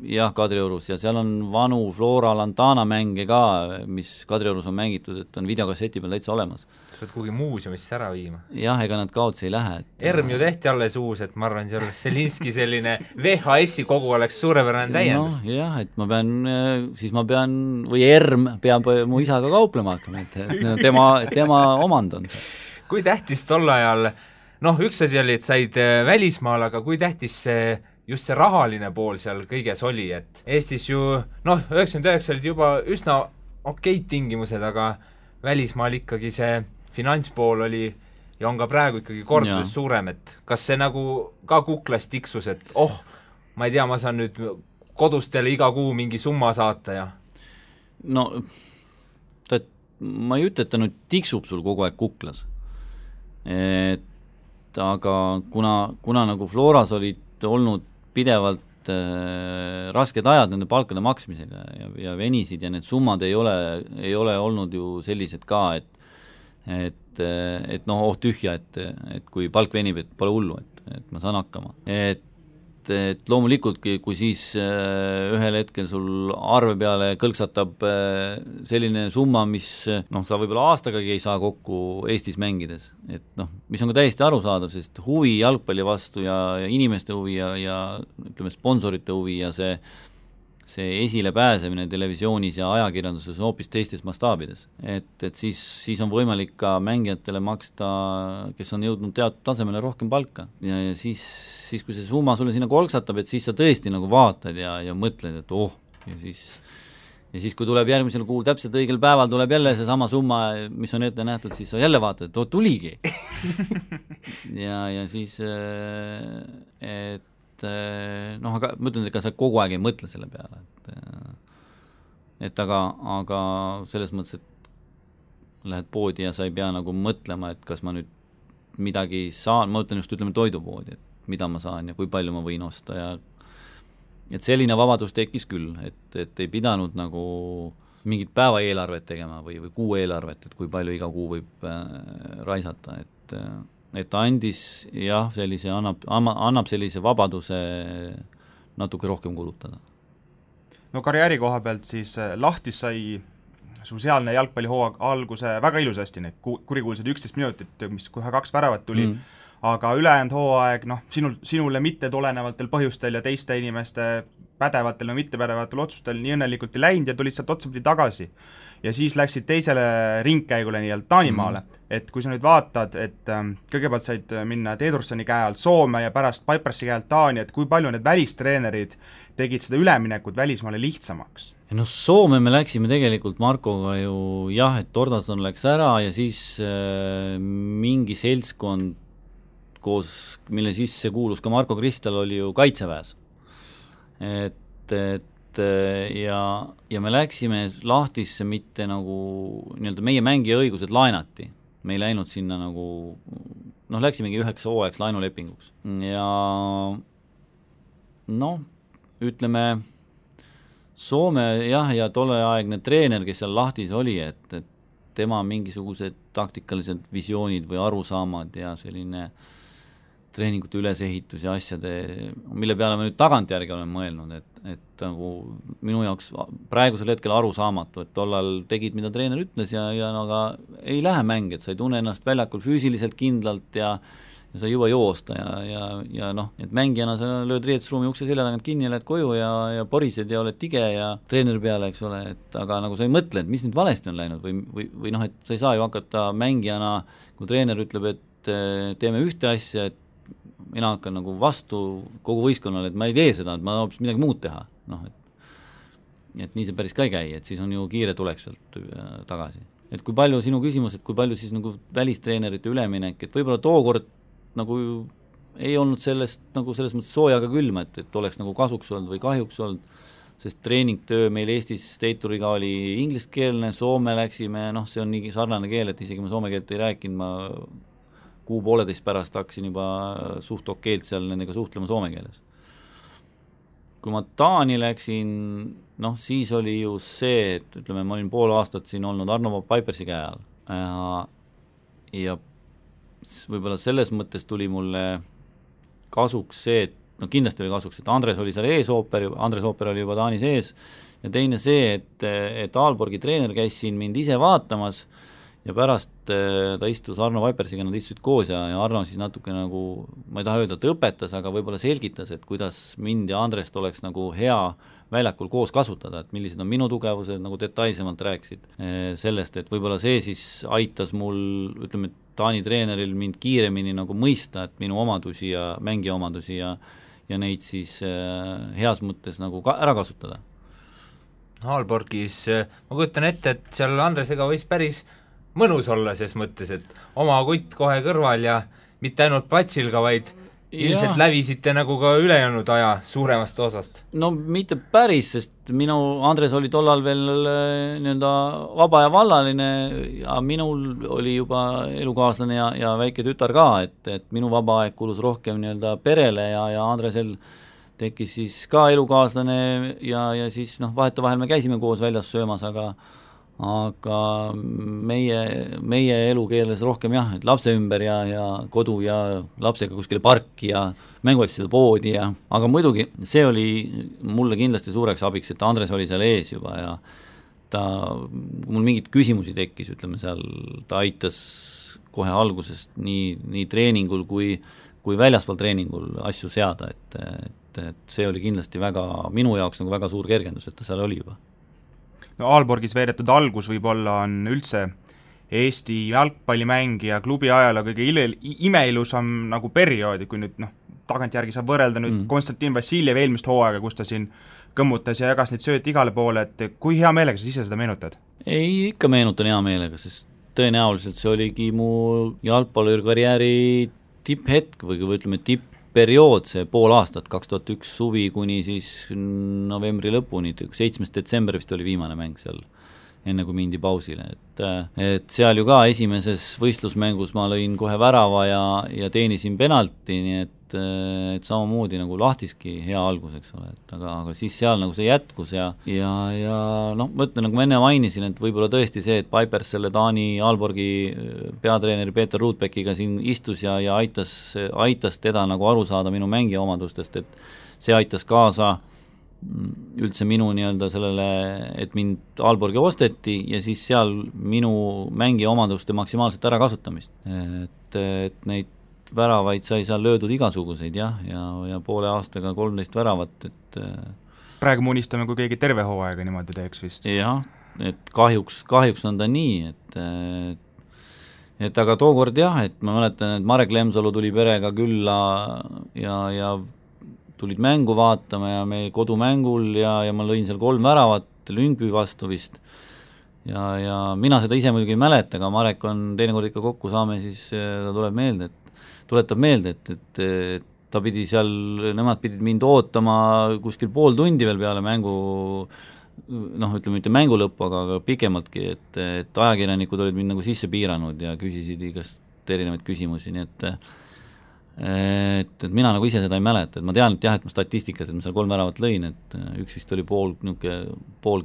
Jah, Kadriorus ja seal on vanu Flora Lantana mänge ka, mis Kadriorus on mängitud, et on videokasseti peal täitsa olemas. Sa pead kuhugi muuseumisse ära viima. Jah, ega nad kaotsi ei lähe. Erm ju tehti alles uus, et ma arvan, see oleks Selinski selline VHS-i kogu oleks suurepärane täiendus. Jah, et ma pean, või Erm peab mu isaga kauplema hakkama, et tema omand on see. Kui tähtis tol ajal, üks asi oli, et said välismaal, aga kui tähtis see just see rahaline pool seal kõiges oli, et Eestis ju, 99 olid juba üsna okeid tingimused, aga välismaal ikkagi see finantspool oli ja on ka praegu ikkagi kordades suurem, et kas see nagu ka kuklas tiksus, et ma ei tea, ma saan nüüd kodustele iga kuu mingi summa saata ja ma ei ütle, et ta nüüd tiksub sul kogu aeg kuklas, et aga kuna nagu Floras olid olnud pidevalt rasked ajad nende palkade maksmisega ja venisid ja need summad ei ole olnud ju sellised ka, et tühja, et kui palk venib, et pole hullu, et ma saan hakkama. Et et loomulikult, kui siis ühel hetkel sul arve peale kõlksatab selline summa, mis sa võib-olla aastagagi ei saa kokku Eestis mängides, et mis on ka täiesti arusaadav, sest huvi jalgpalli vastu ja inimeste huvi ja ütleme, sponsorite huvi ja see esilepääsemine televisioonis ja ajakirjanduses on hoopis teistes mastaabides. Et siis on võimalik ka mängijatele maksta, kes on jõudnud teatud tasemele rohkem palka. Ja siis kui see summa sulle sinna kolksatab, et siis sa tõesti nagu vaatad ja mõtled, et ja siis kui tuleb järgmisel kuul täpselt õigel päeval tuleb jälle see sama summa, mis on ette nähtud, siis sa jälle vaatad, et tuligi. ja siis aga ma ütlen, et ka sa kogu aeg ei mõtle selle peale, et aga selles mõttes, et lähed poodi ja sa ei pea nagu mõtlema, et kas ma nüüd midagi saan, ma ütlen just, ütleme toidupoodi, et mida ma saan ja kui palju ma võin osta ja et selline vabadus tekkis küll, et ei pidanud nagu mingit päeva eelarvet tegema või kuu eelarvet, et kui palju iga kuu võib raisata, et ta andis jah, sellise, annab sellise vabaduse natuke rohkem kulutada. No karjääri koha pealt siis Lahtis sai su sealne jalgpallihooaeg alguse väga ilusasti, need kurikuulsad 11 minutit, mis kohe 2 väravat tuli, aga ülejäänud hooaeg, sinule mitte tulenevatel põhjustel ja teiste inimeste pädevatel ja mittepädevatel otsustel nii õnnelikult ei läinud ja tulid sealt otsapidi tagasi. Ja siis läksid teisele ringkäigule nii-öelda Taanimaale, et kui sa nüüd vaatad, et kõigepealt said minna Teedursoni käe alt Soome ja pärast Pipersi käe alt Taani, et kui palju need välistreenerid tegid seda üleminekut välismaale lihtsamaks? Soome me läksime tegelikult Markoga ju jah, et Tordason läks ära ja siis mingi seltskond koos, mille sisse kuulus ka Marko Kristal, oli ju kaitseväes. Ja me läksime Lahtisse mitte nagu nii-öelda meie mängija õigused laenati. Me ei läinud sinna nagu, läksimegi 9 hooajaks laenulepinguks. Ja ütleme, Soome jah, ja tolleaegne treener, kes seal Lahtis oli, et tema mingisugused taktikalised visioonid või arusaamad ja selline treeningute ülesehitus ja asjade, mille peale ma nüüd tagantjärgi olen mõelnud, et nagu minu jaoks praegusel hetkel arusaamatu, et tollal tegid, mida treener ütles ja aga ei lähe mäng, et sa ei tunne ennast väljakul füüsiliselt kindlalt ja sa ei jõua joosta ja et mängijana sa lööd riietusruumi ukse selja tagant kinni ja lähed koju ja porised ja oled tige ja treeneri peale, eks ole, et aga nagu sa ei mõtle, et mis nüüd valesti on läinud või et sa ei saa ju hakata mängijana, kui treener ütleb, et teeme ühte asja, et mina hakkan nagu vastu kogu võistkonnale, et ma ei tee seda, et ma hoopis midagi muud teha. Et nii see päris ka ei käi, et siis on ju kiire tulek sealt tagasi. Et kui palju sinu küsimus, et kui palju siis nagu välistreenerite üleminek, et võib-olla tookord nagu ei olnud sellest nagu selles mõttes soojaga külma, et oleks nagu kasuks olnud või kahjuks olnud, sest treeningtöö meil Eestis Teituriga oli ingliskeelne, Soome läksime, see on nii sarnane keel, et isegi ma soome keelt ei rääkinud, ma kuu-pooleteist pärast hakkasin juba suht okeilt seal nendega suhtlema soome keeles. Kui ma Taani läksin, siis oli ju see, et ütleme, ma olin pool aastat siin olnud Arno Pipersi käe all ja võib-olla selles mõttes tuli mulle kasuks see, et kindlasti oli kasuks, et Andres oli seal Andres Ooper oli juba Taanis ees ja teine see, et Aalborgi treener käis siin mind ise vaatamas ja pärast ta istus Arno Pipersiga, nad istusid koos ja Arno siis natuke nagu, ma ei taha öelda, et õpetas, aga võib-olla selgitas, et kuidas mind ja Andrest oleks nagu hea väljakul koos kasutada, et millised on minu tugevused, nagu detailsemalt rääkisid sellest, et võib-olla see siis aitas mul, ütleme, Taani treeneril mind kiiremini nagu mõista, et minu omadusi ja mängija omadusi ja neid siis heas mõttes nagu ära kasutada. Aalborgis, ma kujutan ette, et seal Andresega võis päris mõnus olla ses mõttes, et oma kutt kohe kõrval ja mitte ainult platsil ka, vaid ilmselt lävisite nagu ka ülejäänud aja suuremast osast. No mitte päris, sest minu Andres oli tollal veel nii-öelda vaba ja vallaline ja minul oli juba elukaaslane ja väike tütar ka, et minu vaba aeg kulus rohkem nii-öelda perele ja Andresel tekkis siis ka elukaaslane ja siis vahetevahel me käisime koos väljas söömas, aga meie elu keeles rohkem jah, et lapse ümber ja kodu ja lapsega kuskile parki ja mänguasjade poodi aga muidugi see oli mulle kindlasti suureks abiks, et Andres oli seal ees juba ja mul mingeid küsimusi tekkis, ütleme seal, ta aitas kohe algusest nii treeningul kui väljaspool treeningul asju seada, et see oli kindlasti minu jaoks nagu väga suur kergendus, et ta seal oli juba. No Aalborgis veedetud algus võib-olla on üldse Eesti jalgpallimängija klubi ajaloo kõige imeilusam nagu perioodi, kui nüüd tagantjärgi saab võrrelda nüüd Konstantin Vassiljev eelmist hooaega, kus ta siin kõmmutas ja jagas neid sööt igale poole, et kui hea meelega sa ise seda meenutad? Ei, ikka meenutan hea meelega, sest tõenäoliselt see oligi mu jalgpallurikarjääri tipphetk või ütleme tippperiood, see pool aastat, 2001 suvi kuni siis novembri lõpuni, 7. detsember vist oli viimane mäng seal, enne kui mindi pausile, et seal ju ka esimeses võistlusmängus ma lõin kohe värava ja teenisin penalti, nii et samamoodi nagu Lahtiski hea algus, eks ole, aga siis seal nagu see jätkus ja ma ütlen, nagu ma enne mainisin, et võib-olla tõesti see, et Pipers selle Taani Aalborgi peatreeneri Peeter Ruutbeckiga siin istus ja aitas teda nagu aru saada minu mängija omadustest, et see aitas kaasa üldse minu nii-öelda sellele, et mind Aalborgi osteti ja siis seal minu mängija omaduste maksimaalset ära kasutamist, et neid väravaid sai seal löödud igasuguseid ja poole aastaga 13 väravat, et praegu me unistame, kui keegi terve hooaega niimoodi teeks vist. Jah, et kahjuks on ta nii, et aga tookord jah, et ma mäletan, et Marek Lemsalu tuli perega külla ja tulid mängu vaatama ja me kodumängul ja ma lõin seal 3 väravat Lyngby vastu vist ja mina seda ise muidugi ei mäleta, aga Marek on teinekord ikka kokku saame, siis ta tuletab meelde, et ta pidi seal, nemad pidid mind ootama kuskil pool tundi veel peale mängu, ütleme mitte mängu lõppu, aga pikemaltki, et ajakirjanikud olid mind nagu sisse piiranud ja küsisid igast erinevaid küsimusi, nii et mina nagu ise seda ei mäleta, et ma tean, et jah, et ma statistikas, et ma seal 3 väravat lõin, et üks vist oli pool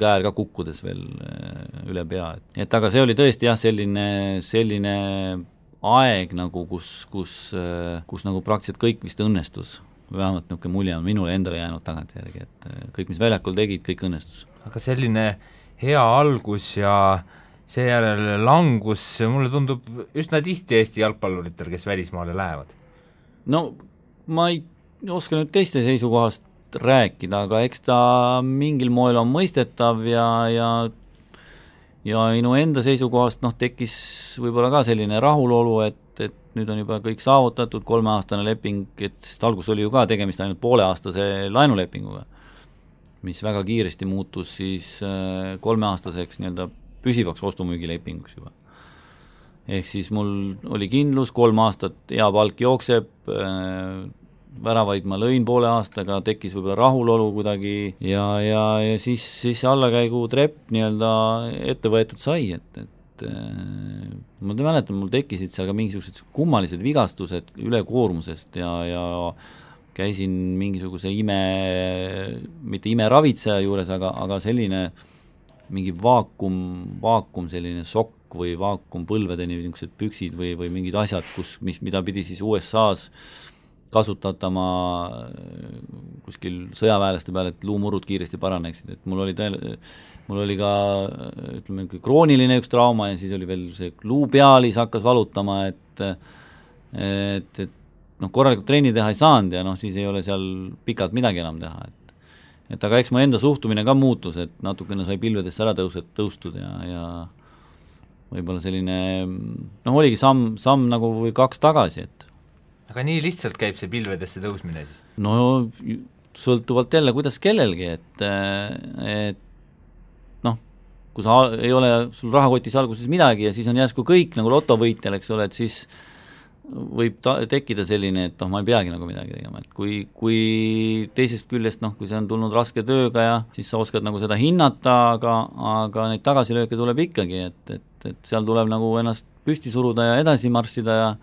käär ka kukkudes veel üle pea, et aga see oli tõesti jah, selline aeg nagu, kus nagu praktiliselt kõik vist õnnestus, vähemalt niisugune mulje on minule endale jäänud tagantjärgi, et kõik, mis väljakul tegid, kõik õnnestus. Aga selline hea algus ja seejärel langus, mulle tundub üsna tihti Eesti jalgpalluritel, kes välismaale lähevad. No ma ei oska nüüd teiste seisukohast rääkida, aga eks ta mingil moel on mõistetav ja minu enda seisukohast tekkis võib-olla ka selline rahulolu, et nüüd on juba kõik saavutatud, 3-aastane leping, et sest algus oli ju ka tegemist ainult pooleaastase laenulepinguga, mis väga kiiresti muutus siis 3-aastaseks nii-öelda püsivaks ostumüügilepinguks juba. Ehk siis mul oli kindlus, 3 aastat hea palk jookseb, väravaid ma lõin poole aastaga, tekkis võib-olla rahulolu kuidagi ja siis allakäigu trepp nii-öelda ette võetud sai, et ma mäletan, mul tekkisid seal ka mingisugused kummalised vigastused ülekoormusest ja käisin mingisuguse mitte imeravitseja juures, aga selline mingi vaakum selline sokk või vaakumpõlvedeni niisugused püksid või mingid asjad, mida pidi siis USA-s kasutatama kuskil sõjaväelaste peale, et luumurud kiiresti paraneksid, et mul oli ka ütleme krooniline üks trauma ja siis oli veel see luupealis hakkas valutama, et korralikult trenni teha ei saanud ja siis ei ole seal pikalt midagi enam teha, et aga eks mu enda suhtumine ka muutus, et natukene sai pilvedesse ära tõustud ja võib-olla selline oligi samm nagu või 2 tagasi, et aga nii lihtsalt käib see pilvedesse tõusmine siis? No sõltuvalt jälle, kuidas kellelgi, et kui sa ei ole sul rahakotis alguses midagi ja siis on järsku kõik nagu lotovõitjal, eks ole, et siis võib tekkida selline, et ma ei peagi nagu midagi tegema, et kui teisest küljest, kui see on tulnud raske tööga ja siis sa oskad nagu seda hinnata, aga neid tagasilööke tuleb ikkagi, et seal tuleb nagu ennast püsti suruda ja edasi marssida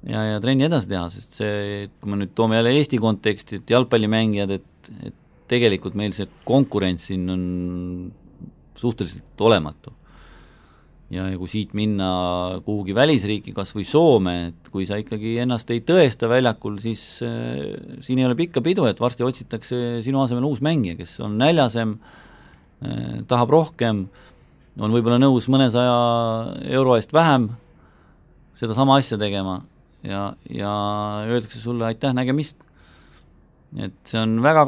ja trenni edasi teha, sest see, kui me nüüd toome jälle Eesti konteksti, et jalgpallimängijad, et tegelikult meil see konkurents siin on suhteliselt olematu. Ja kui siit minna kuhugi välisriiki, kas või Soome, et kui sa ikkagi ennast ei tõesta väljakul, siis siin ei ole pikka pidu, et varsti otsitakse sinu asemel uus mängija, kes on näljasem, tahab rohkem, on võib-olla nõus mõnesaja euro eest vähem seda sama asja tegema ja öeldakse sulle aitäh, nägemist. Et see on väga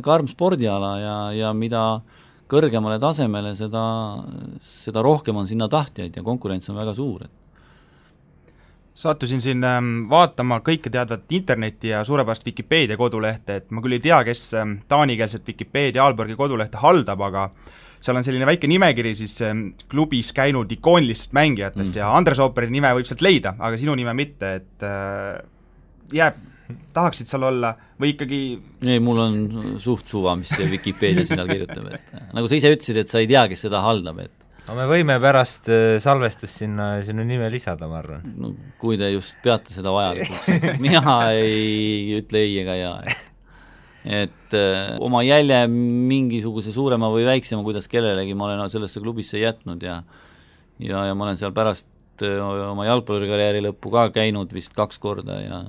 karm spordiala ja mida kõrgemale tasemele, seda rohkem on sinna tahtjaid ja konkurents on väga suur. Sattusin siin vaatama kõike teadvat interneti ja suurepärast Wikipedia kodulehte, et ma küll ei tea, kes taanikeelset Wikipedia Aalborgi kodulehte haldab, aga seal on selline väike nimekiri siis klubis käinud ikoonilistest mängijatest ja Andres Ooperi nime võib sealt leida, aga sinu nime mitte, et tahaksid seal olla või ikkagi... Ei, mul on suht suva, mis see Wikipedia sinna kirjutab, et nagu sa ise ütlesid, et sa ei tea, kes seda haldab, et no me võime pärast salvestust sinna sinu nime lisada, ma arvan. No, kui te just peate seda vajalikuks, mina ei ütle ei ega jaa, et oma jälje mingisuguse suurema või väiksema, kuidas kellelegi ma olen sellesse klubisse jätnud ja ma olen seal pärast oma jalgpallikarjääri lõppu ka käinud vist 2 korda ja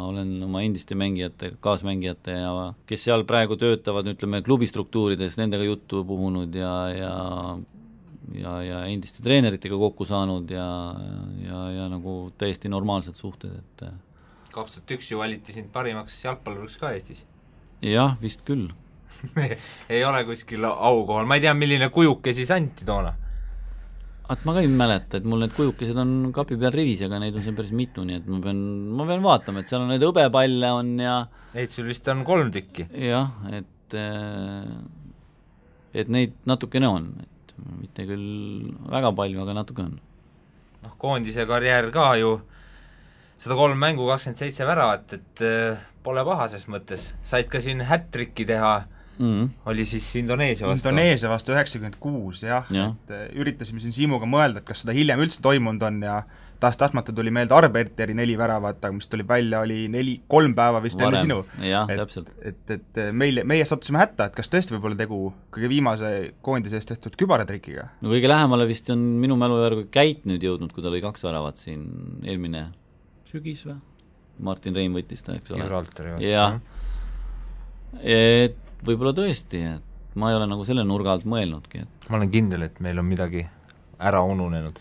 olen oma endiste mängijate, kaasmängijate ja kes seal praegu töötavad, ütleme, klubistruktuurides, nendega juttu puhunud ja endiste treeneritega kokku saanud ja nagu täiesti normaalsed suhted, et 2001 ju valiti sind parimaks jalgpalluriks ka Eestis. Jah, vist küll. ei ole kuskil aukohal, ma ei tea, milline kujuke siis anti toona. Ma ka ei mäleta, et mul need kujukesed on kapi peal rivis, aga neid on seal päris mitu, nii et ma pean vaatama, et seal on neid hõbepalle on ja neid sul vist on 3 tükki. Jah, et neid natukene on, et mitte küll väga palju, aga natuke on. Noh, koondise karjäär ka ju 103 mängu, 27 väravat, et pole paha ses mõttes. Said ka siin hat-tricki teha, oli siis Indoneesia vastu. Indoneesia vastu 96, jah. Et üritasime siin Siimuga mõelda, et kas seda hiljem üldse toimunud on ja tahtmata tuli meelde Arbeiteri 4 väravat, aga mis tuli välja, oli 3 päeva vist enne sinu. Jah, täpselt. Et meie sattusime hätta, et kas tõesti võib olla tegu kõige viimase koondise eest tehtud kübaratrikiga? No kõige lähemale vist on minu mälu järgi Käit nüüd jõudnud, kui ta oli 2 väravat siin eelmine sügis või? Martin Reim võttis ta, eks ole. Gibraltari vastu. Jah. Et võib-olla tõesti, et ma ei ole nagu selle nurga alt mõelnudki. Ma olen kindel, et meil on midagi ära ununenud.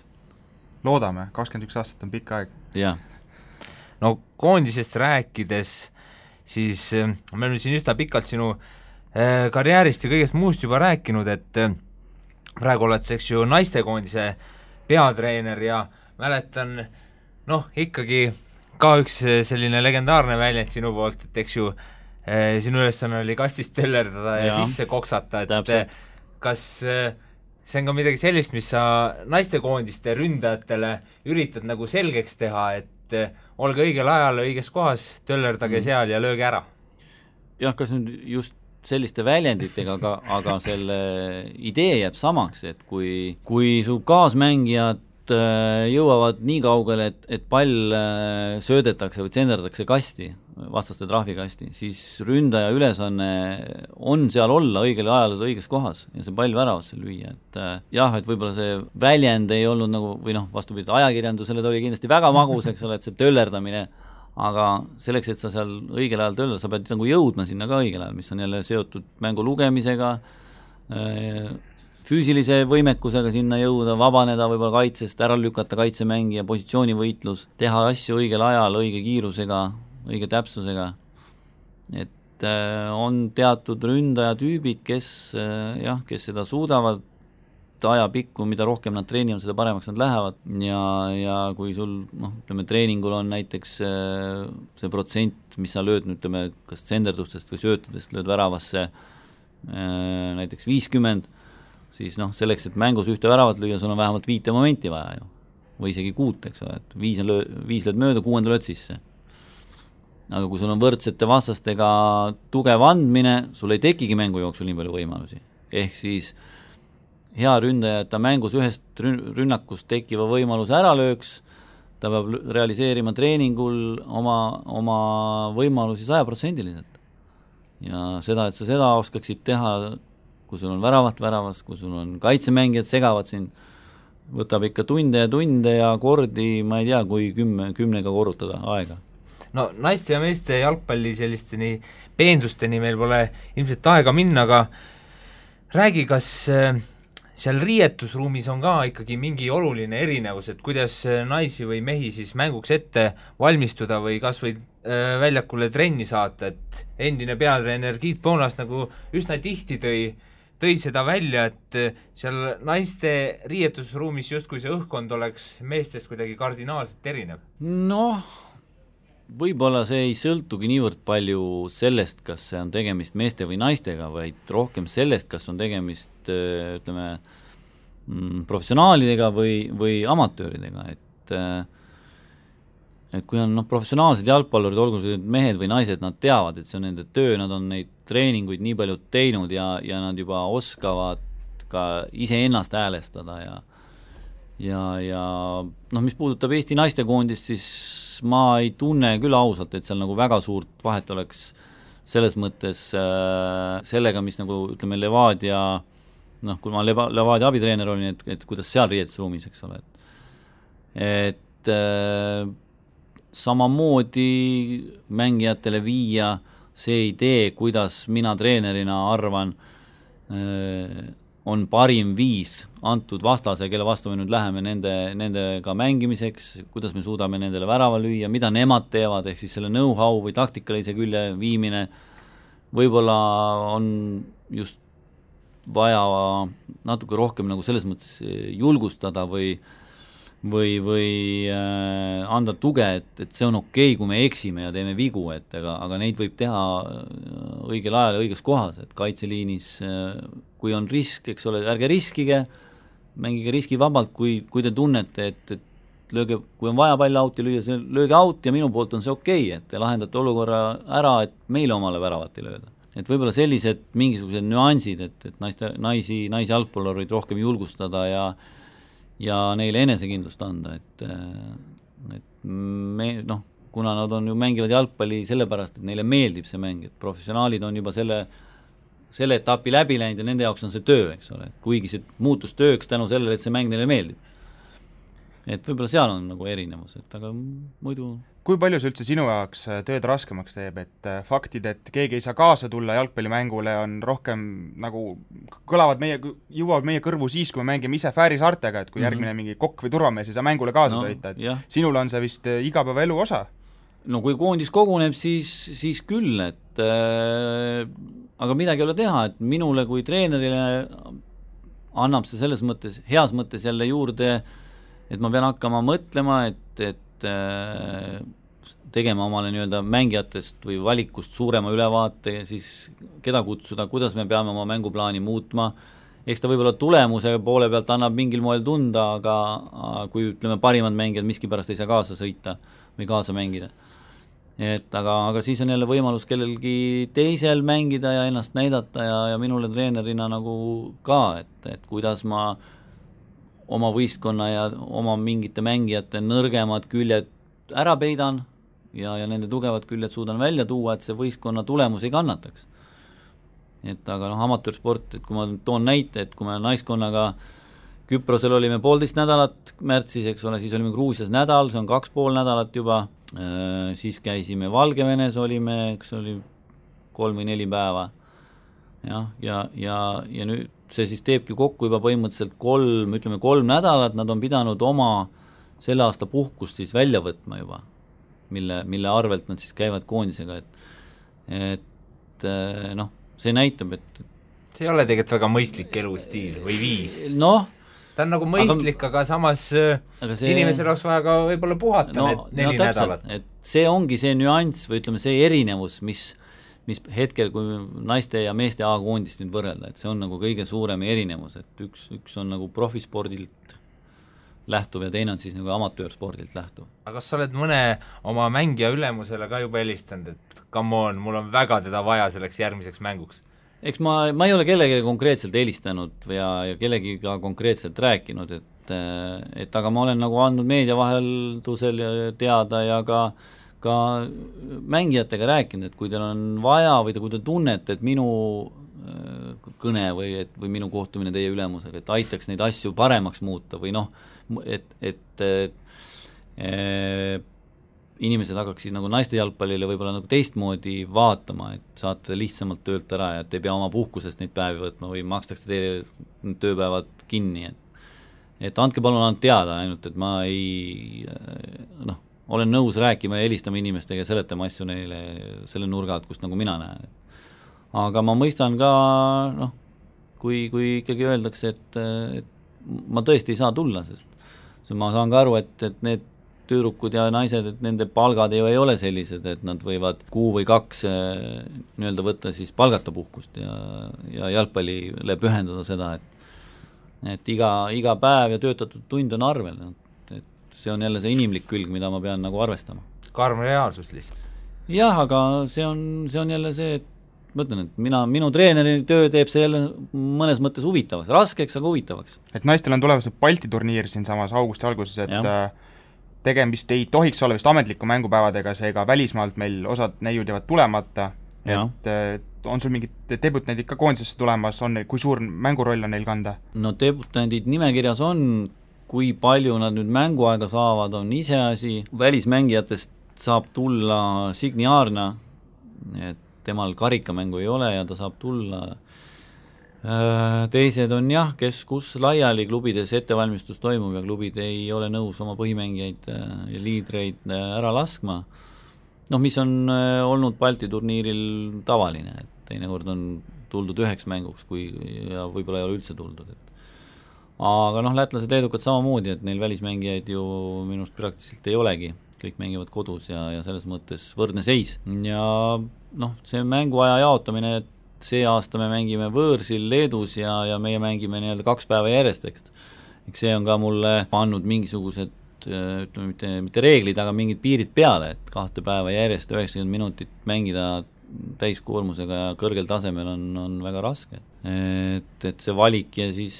Loodame, 21 aastat on pikk aeg. Jah. No koondisest rääkides, siis me oleme siin üsna pikalt sinu karjäärist ja kõigest muust juba rääkinud, et praegu oled sa, eks ju, naistekoondise peatreener ja mäletan, ikkagi ka üks selline legendaarne väljend sinu poolt, et eks ju sinu ülesanne oli kastist tellerdada ja sisse koksata, et täpselt. Kas see on ka midagi sellist, mis sa naistekoondiste ründajatele üritad nagu selgeks teha, et olge õigel ajal õiges kohas, töllerdage seal ja lööge ära? Jah, kas nüüd just selliste väljenditega, aga selle idee jääb samaks, et kui su kaasmängijad jõuavad nii kaugele, et pall söödetakse või tsenderdatakse kasti, vastaste trahvikasti, siis ründaja ülesanne on seal olla õigel ajal õiges kohas ja see pall väravasse lüüa, et jah, et võib-olla see väljend ei olnud nagu, või vastupidi, ajakirjandusele ta oli kindlasti väga magus, eks ole, et see töllerdamine, aga selleks, et sa seal õigel ajal töllerdad, sa pead nagu jõudma sinna ka õigel ajal, mis on jälle seotud mängu lugemisega, füüsilise võimekusega sinna jõuda, vabaneda võib-olla kaitsest, ära lükata kaitsemängija, positsioonivõitlus, teha asju õigel ajal, õige kiirusega, õige täpsusega, et on teatud ründajatüübid, kes seda suudavad ajapikku, mida rohkem nad treenivad, seda paremaks nad lähevad ja kui sul, ütleme, treeningul on näiteks see protsent, mis sa lööd, ütleme, kas tsenderdustest või söötudest lööd väravasse näiteks 50, siis selleks, et mängus ühte väravat lüüa, sul on vähemalt 5 momenti vaja ju, või isegi 6, eks ole, et 5 lööd mööda, 6 lööd sisse. Aga kui sul on võrdsete vastastega tugev andmine, sul ei tekigi mängu jooksul nii palju võimalusi. Ehk siis hea ründaja, et ta mängus ühest rünnakust tekiva võimaluse ära lööks, ta peab realiseerima treeningul oma võimalusi 100%. Ja seda, et sa seda oskaksid teha kui sul on väravas, kui sul on kaitsemängijad segavad sind, võtab ikka tunde ja kordi, ma ei tea, kui 10-ga korrutada aega. No naiste ja meeste jalgpalli sellisteni peensusteni meil pole ilmselt aega minna, aga räägi, kas seal riietusruumis on ka ikkagi mingi oluline erinevus, et kuidas naisi või mehi siis mänguks ette valmistuda või kas või väljakule trenni saata, et endine peatreener Giit Poonas nagu üsna tihti tõi seda välja, et seal naiste riietusruumis justkui see õhkkond oleks meestest kuidagi kardinaalselt erinev. Noh, võib-olla see ei sõltugi niivõrd palju sellest, kas see on tegemist meeste või naistega, vaid rohkem sellest, kas on tegemist, ütleme, professionaalidega või amatööridega, et kui on professionaalsed jalgpallurid, olgu see mehed või naised, nad teavad, et see on nende töö, nad on neid treeninguid nii palju teinud ja nad juba oskavad ka iseennast häälestada ja mis puudutab Eesti naistekoondist, siis ma ei tunne küll ausalt, et seal nagu väga suurt vahet oleks selles mõttes sellega, mis nagu ütleme Levadia, kui ma Levadia abitreener olin, et kuidas seal riietusruumis, eks ole, et samamoodi mängijatele viia see idee, kuidas mina treenerina arvan, on parim viis antud vastase, kelle vastu me nüüd läheme nendega mängimiseks, kuidas me suudame nendele värava lüüa, mida nemad teevad, ehk siis selle know-how või taktikalise külje viimine, võib-olla on just vaja natuke rohkem nagu selles mõttes julgustada või anda tuge, et see on okei, kui me eksime ja teeme vigu, aga neid võib teha õigel ajal ja õiges kohas, et kaitseliinis, kui on risk, eks ole, ärge riskige, mängige riskivabalt, kui te tunnete, et lööge, kui on vaja pall auti lüüa, lööge out ja minu poolt on see okei, et te lahendate olukorra ära, et meile omale väravat ei lööda. Et võib-olla sellised mingisugused nüansid, et naisi jalgpallureid rohkem julgustada ja neile enesekindlust anda, et me, kuna nad on ju mängivad jalgpalli sellepärast, et neile meeldib see mäng, et professionaalid on juba selle etapi läbi läinud ja nende jaoks on see töö, eks ole, kuigi see muutus tööks tänu sellele, et see mäng neile meeldib. Et võib-olla seal on nagu erinevus, aga muidu... Kui palju see üldse sinu jaoks tööd raskemaks teeb, et faktid, et keegi ei saa kaasa tulla jalgpallimängule, on rohkem nagu jõuavad meie kõrvu siis, kui me mängime ise Fääri saartega, et kui järgmine mingi kokk või turvamees ei saa mängule kaasa sõita, et sinul on see vist igapäevaelu osa? No kui koondis koguneb, siis küll, et aga midagi ei ole teha, et minule kui treenerile annab see selles mõttes, heas mõttes jälle juurde, et ma pean hakkama mõtlema, et tegema omale nii-öelda mängijatest või valikust suurema ülevaate ja siis keda kutsuda, kuidas me peame oma mänguplaani muutma. Eks ta võib-olla tulemuse poole pealt annab mingil moel tunda, aga kui ütleme parimad mängijad miskipärast ei saa kaasa sõita või kaasa mängida. Aga siis on jälle võimalus kellelgi teisel mängida ja ennast näidata ja minule treenerina nagu ka, et kuidas ma oma võistkonna ja oma mingite mängijate nõrgemad küljed ära peidan ja nende tugevad küljed suudan välja tuua, et see võistkonna tulemus ei kannataks. Aga amatöörsport, et kui ma toon näite, et kui me naiskonnaga Küprosel olime 1,5 nädalat märtsis, eks ole, siis olime Gruusias nädal, see on 2,5 nädalat juba, siis käisime Valgevenes, olime, eks oli 3 või 4 päeva. Ja nüüd see siis teebki kokku juba põhimõtteliselt 3 nädalat, nad on pidanud oma selle aasta puhkust siis välja võtma juba, mille arvelt nad siis käivad koondisega, et see näitab, et see ei ole tegelikult väga mõistlik elustiil või viis. Ta on nagu mõistlik, aga samas inimesel oleks vaja ka võib-olla puhata need 4 nädalat. Et see ongi see nüanss või ütleme see erinevus, mis hetkel, kui naiste ja meeste A-koondist nüüd võrrelda, et see on nagu kõige suurem erinevus, et üks on nagu profispordilt lähtuv ja teine on siis nagu amatöörspordilt lähtuv. Aga kas sa oled mõne oma mängija ülemusele ka juba helistanud, et come on, mul on väga teda vaja selleks järgmiseks mänguks? Eks ma ei ole kellegi konkreetselt helistanud ja kellegi ka konkreetselt rääkinud, et aga ma olen nagu andnud meedia vaheldusel teada ja ka mängijatega rääkinud, et kui teil on vaja või kui te tunnete, et minu kõne või minu kohtumine teie ülemusega, et aitaks neid asju paremaks muuta või noh, et inimesed hakkaksid nagu naiste jalgpallile võib-olla nagu teistmoodi vaatama, et saate lihtsamalt töölt ära ja et ei pea oma puhkusest neid päevi võtma või makstakse teile tööpäevad kinni, et andke palun ainult teada ainult, et ma ei olen nõus rääkima ja helistama inimestega ja seletama asju neile selle nurga alt, kust nagu mina näen. Aga ma mõistan ka, kui ikkagi öeldakse, et ma tõesti ei saa tulla, sest ma saan ka aru, et need tüdrukud ja naised, et nende palgad ei ole sellised, et nad võivad 1 või 2 nii-öelda võtta siis palgata puhkust ja jalgpallile pühendada seda, et iga päev ja töötatud tund on arvel, et see on jälle see inimlik külg, mida ma pean nagu arvestama. Karm reaalsus lihtsalt. Jah, aga see on jälle see, et ma ütlen, et minu treeneri töö teeb see jälle mõnes mõttes huvitavaks, raskeks, aga huvitavaks. Et naistel on tulemas Balti turniir siin samas augusti alguses, et tegemist ei tohiks olla vist ametliku mängupäevadega, seega välismaalt meil osad neiud jäävad tulemata, et on sul mingid debutandid ka koondisesse tulemas, kui suur mänguroll on neil kanda? No debutandid nimekirjas on, kui palju nad nüüd mänguaega saavad, on iseasi, välismängijatest saab tulla Signi Aarna, et temal karikamängu ei ole ja ta saab tulla. Teised on jah, kes kus laiali klubides ettevalmistus toimub ja klubid ei ole nõus oma põhimängijaid ja liidreid ära laskma. Mis on olnud Balti turniiril tavaline, et teinekord on tuldud 1 mänguks ja võib-olla ei ole üldse tuldud. Aga lätlased leedukad samamoodi, et neil välismängijaid ju minust praktiliselt ei olegi, kõik mängivad kodus ja selles mõttes võrdne seis. Ja see mänguaja jaotamine, et see aasta me mängime võõrsil Leedus ja meie mängime nii-öelda 2 päeva järjest, eks see on ka mulle pannud mingisugused, ütleme mitte reeglid, aga mingid piirid peale, et 2 päeva järjest 90 minutit mängida täiskoormusega ja kõrgel tasemel on väga raske. Et see valik ja siis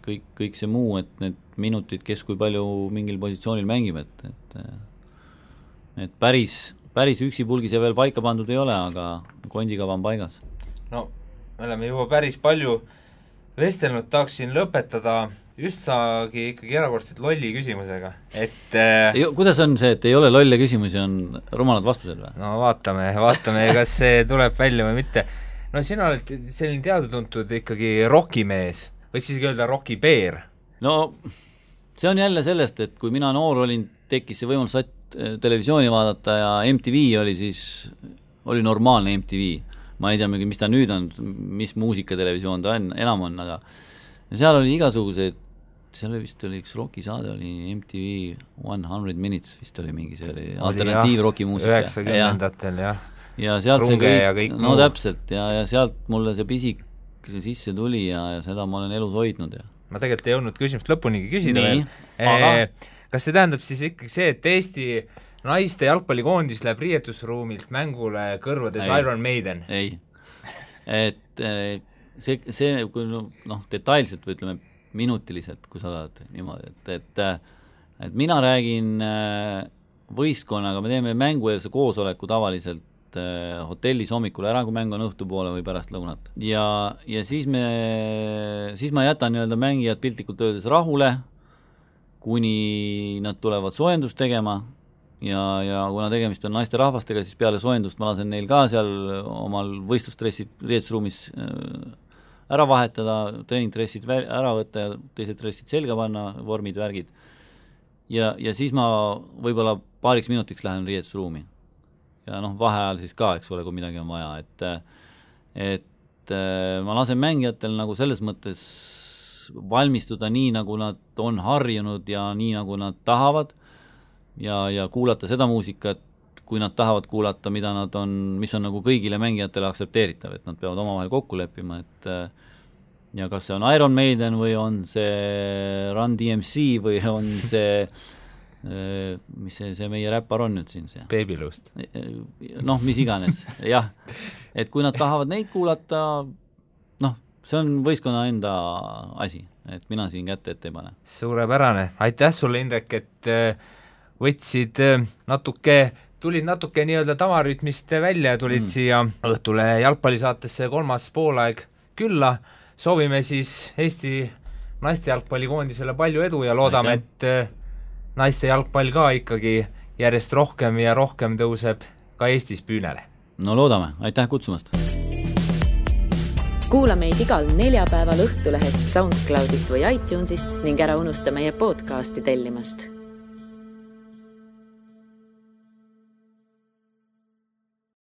kõik see muu, et need minutid, kes kui palju mingil positsioonil mängib, et päris üksipulgis ja veel paika pandud ei ole, aga kondikava on paigas. No, me oleme juba päris palju vestelnud, tahaksin lõpetada justagi ikkagi erakordselt lolli küsimusega, et kuidas on see, et ei ole lolle küsimusi, on rumalad vastused või? No vaatame, kas see tuleb välja või mitte. No sina oled selline teadutuntud ikkagi rokimees, võiks isegi öelda rokipeer. No see on jälle sellest, et kui mina noor olin, tekkis see võimalus televisiooni vaadata ja MTV oli normaalne MTV. Ma ei tea, mis ta nüüd on, mis muusikatelevisioon ta enam on, aga seal oli igasugused, seal vist oli üks rokisaade, oli MTV 100 Minutes vist oli mingi, see oli alternatiivrokimuusika. 90-ndatel, jah. Ja sealt Runge ja kõik no täpselt, ja sealt mulle see pisik sisse tuli ja seda ma olen elus hoidnud. Ja. Ma tegelikult ei jõudnud küsimust lõpunigi küsida veel. Aga kas see tähendab siis ikkagi see, et Eesti naiste jalgpallikoondis läheb riietusruumilt mängule kõrvades Iron Maiden? Ei. Et see kui detailselt või ütleme minutiliselt, kui sa tahad niimoodi, et mina räägin võistkonnaga, me teeme mängueelse koosoleku tavaliselt hotellis hommikul ära, kui mäng on õhtupoole või pärast lõunat. Ja siis ma jätan nii-öelda mängijad piltlikult öeldes rahule, kuni nad tulevad soojendust tegema ja kuna tegemist on naiste rahvastega, siis peale soojendust ma lasen neil ka seal omal võistlustressid riietusruumis ära vahetada, treeningtressid ära võtta ja teised tressid selga panna, vormid, värgid. Ja siis ma võib-olla paariks minutiks lähen riietusruumi. Ja vaheajal siis ka, eks ole, kui midagi on vaja. Et ma lasen mängijatel nagu selles mõttes valmistuda nii, nagu nad on harjunud ja nii, nagu nad tahavad ja kuulata seda muusikat, kui nad tahavad kuulata, mis on nagu kõigile mängijatele aksepteeritav, et nad peavad omavahel kokku leppima, et ja kas see on Iron Maiden või on see Run DMC või on see mis see meie räppar on nüüd siin see? Babylust. Mis iganes, jah. Et kui nad tahavad neid kuulata, see on võistkonna enda asi, et mina siin kätte ette ei pane. Suurepärane. Aitäh sulle, Indrek, et võtsid tulid natuke nii-öelda tavarütmist välja ja tulid siia õhtule jalgpallisaatesse 3. poolaeg külla, soovime siis Eesti naiste jalgpallikoondisele palju edu ja loodame, et naiste jalgpall ka ikkagi järjest rohkem ja rohkem tõuseb ka Eestis püünele. No loodame, aitäh kutsumast! Kuula meid igal neljapäeval Õhtulehest, SoundCloudist või iTunesist ning ära unusta meie podcasti tellimast.